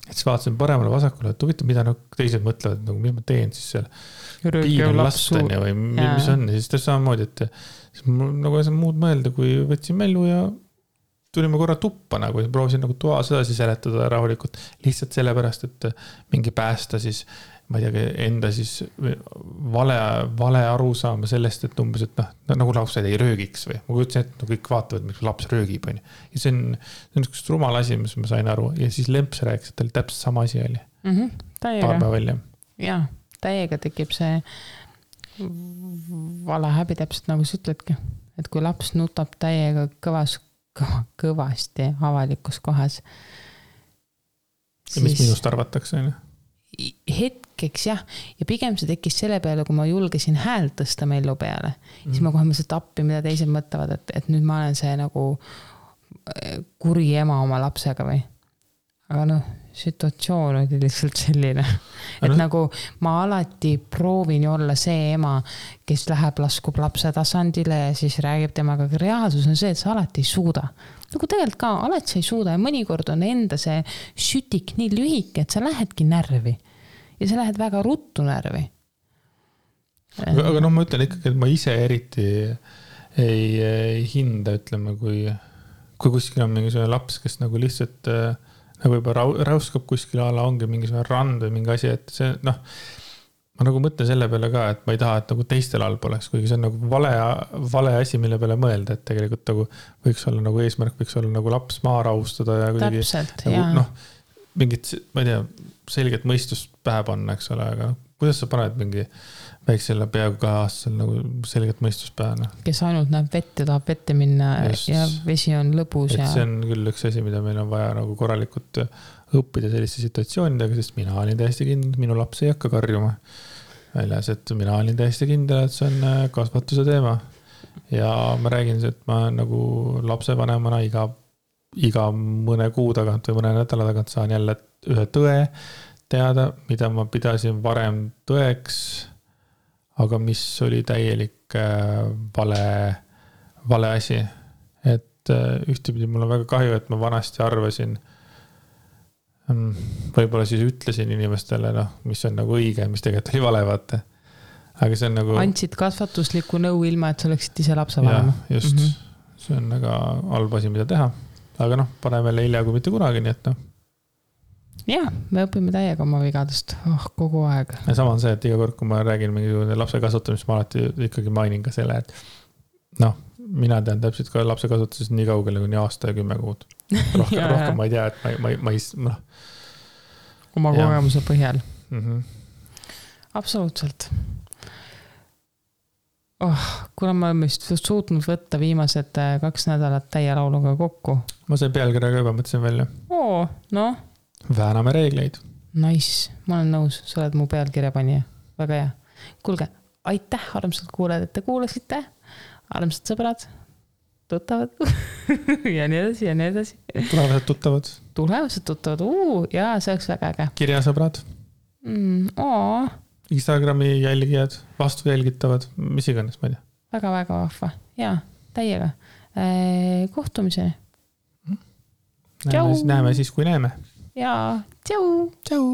et siis vaatasin paremale vasakule, et huvitav, mida teised mõtlevad, nagu mis ma teen siis seal piiran lastan ja või mis on ja siis ta samamoodi, et nagu ei saa muud mõelda, kui võtsin Mellu ja tulime korra tuppa nagu ja proovisin nagu toa sedasi seletada rahulikult lihtsalt sellepärast, et mingi päästa siis ma ei tea, enda siis vale aru saama sellest, et umbes, et nagu lapsed ei röögiks või ma kujutsin, et kõik vaatavad, miks laps röögib on. Ja see on üks rumal asi, mis ma sain aru ja siis Lemps rääkis, et tal täpselt sama asi oli. Paar päeva välja. Jaa, täiega tekib see vale häbi täpselt nagu sa ütledki, et kui laps nutab täiega kõvasti avalikus kohas. Ja mis minust arvatakse, on? Hetkeks jah, ja pigem see tekkis selle peale, kui ma julgesin häält tõsta Mellu peale, siis ma kohe mõtlesin tappi, mida teised mõtlevad, et nüüd ma olen see nagu kuri ema oma lapsega või. Aga situatsioon oli lihtsalt selline, et nagu ma alati proovin olla see ema, kes läheb laskub lapse tasandile ja siis räägib temaga, aga reaalsus on see, et sa alati ei suuda. Nagu tegelikult ka, alati sa ei suuda ja mõnikord on enda see sütik nii lühike, et sa lähedki närvi ja sa lähed väga ruttu närvi. Aga ma ütlen ikkagi, et ma ise eriti ei hinda, ütleme, kui kuskil on mingisugune laps, kes nagu lihtsalt nagu juba räuskab kuskil ala, ongi mingisugune rand või mingi asi, et see, ma nagu mõtlen selle peale ka, et ma ei taha, et nagu teistel all poleks, kuigi see on nagu vale asi, mille peale mõelda, et tegelikult nagu võiks olla nagu eesmärk, võiks olla nagu laps maa rahustada ja kuidagi täpselt, nagu, mingit, ma ei tea, selget mõistust pähe panna, eks ole, aga kuidas sa paned mingi väiksele peaaegu 2 aastasel nagu selget mõistust pähe? Kes ainult näeb vett ja tahab vette minna ja vesi on lõbus. Et see on küll üks asi, mida meil on vaja nagu korralikult õppida selliste situatsioonidega, sest mina olin täiesti kindel, minu laps ei hakka karjuma väljas, et mina olin täiesti kindel, et see on kasvatuse teema. Ja ma räägin, et ma nagu lapsevanemana iga mõne kuu tagant või mõne nädala tagant saan jälle ühe tõe teada, mida ma pidasin varem tõeks, aga mis oli täielik vale asi. Et ühtepidi mul on väga kahju, et ma vanasti arvasin, võib-olla siis ütlesin inimestele, mis on nagu õige, mis tegelikult oli vale, vaata. Aga see on nagu... Andsid kasvatuslikku nõu ilma, et sa oleksid ise lapsevanema. Just, see on väga halb asi, mida teha. Aga parem jälle hilja kui mitte kunagi, nii et Jah, me õpime täiega oma vigadest kogu aeg. Ja sama on see, et iga kord, kui ma räägin mingi lapse kasutamist, ma alati ikkagi mainin ka selle, et mina tean täpselt ka lapse kasutusest nii kaugele kuni aasta ja 10 kuud. Rohkem ma ei tea, et ma ei... Oma kogemuse põhjal. Absoluutselt. Kuna ma olen vist suutnud võtta viimased 2 nädalat täie lauluga kokku. Ma see pealkirja ka juba mõtlesin välja. Vääname reegleid. Nice, ma olen nõus, sa oled mu pealkirja panija. Väga hea. Kuulge, aitäh, armsad kuulajad, et te kuulasite. Armsad sõbrad, tuttavad ja nii edasi ja nii edasi. Tulevased tuttavad, jaa, see oleks väga äge. Kirjasõbrad. Instagrami jälgijad, vastu jälgitavad, mis iganes, ma ei tea. Väga-väga vahva, jaa, täiega. Kohtumiseni. Näeme siis, kui näeme. Jaa, tšau! Tšau!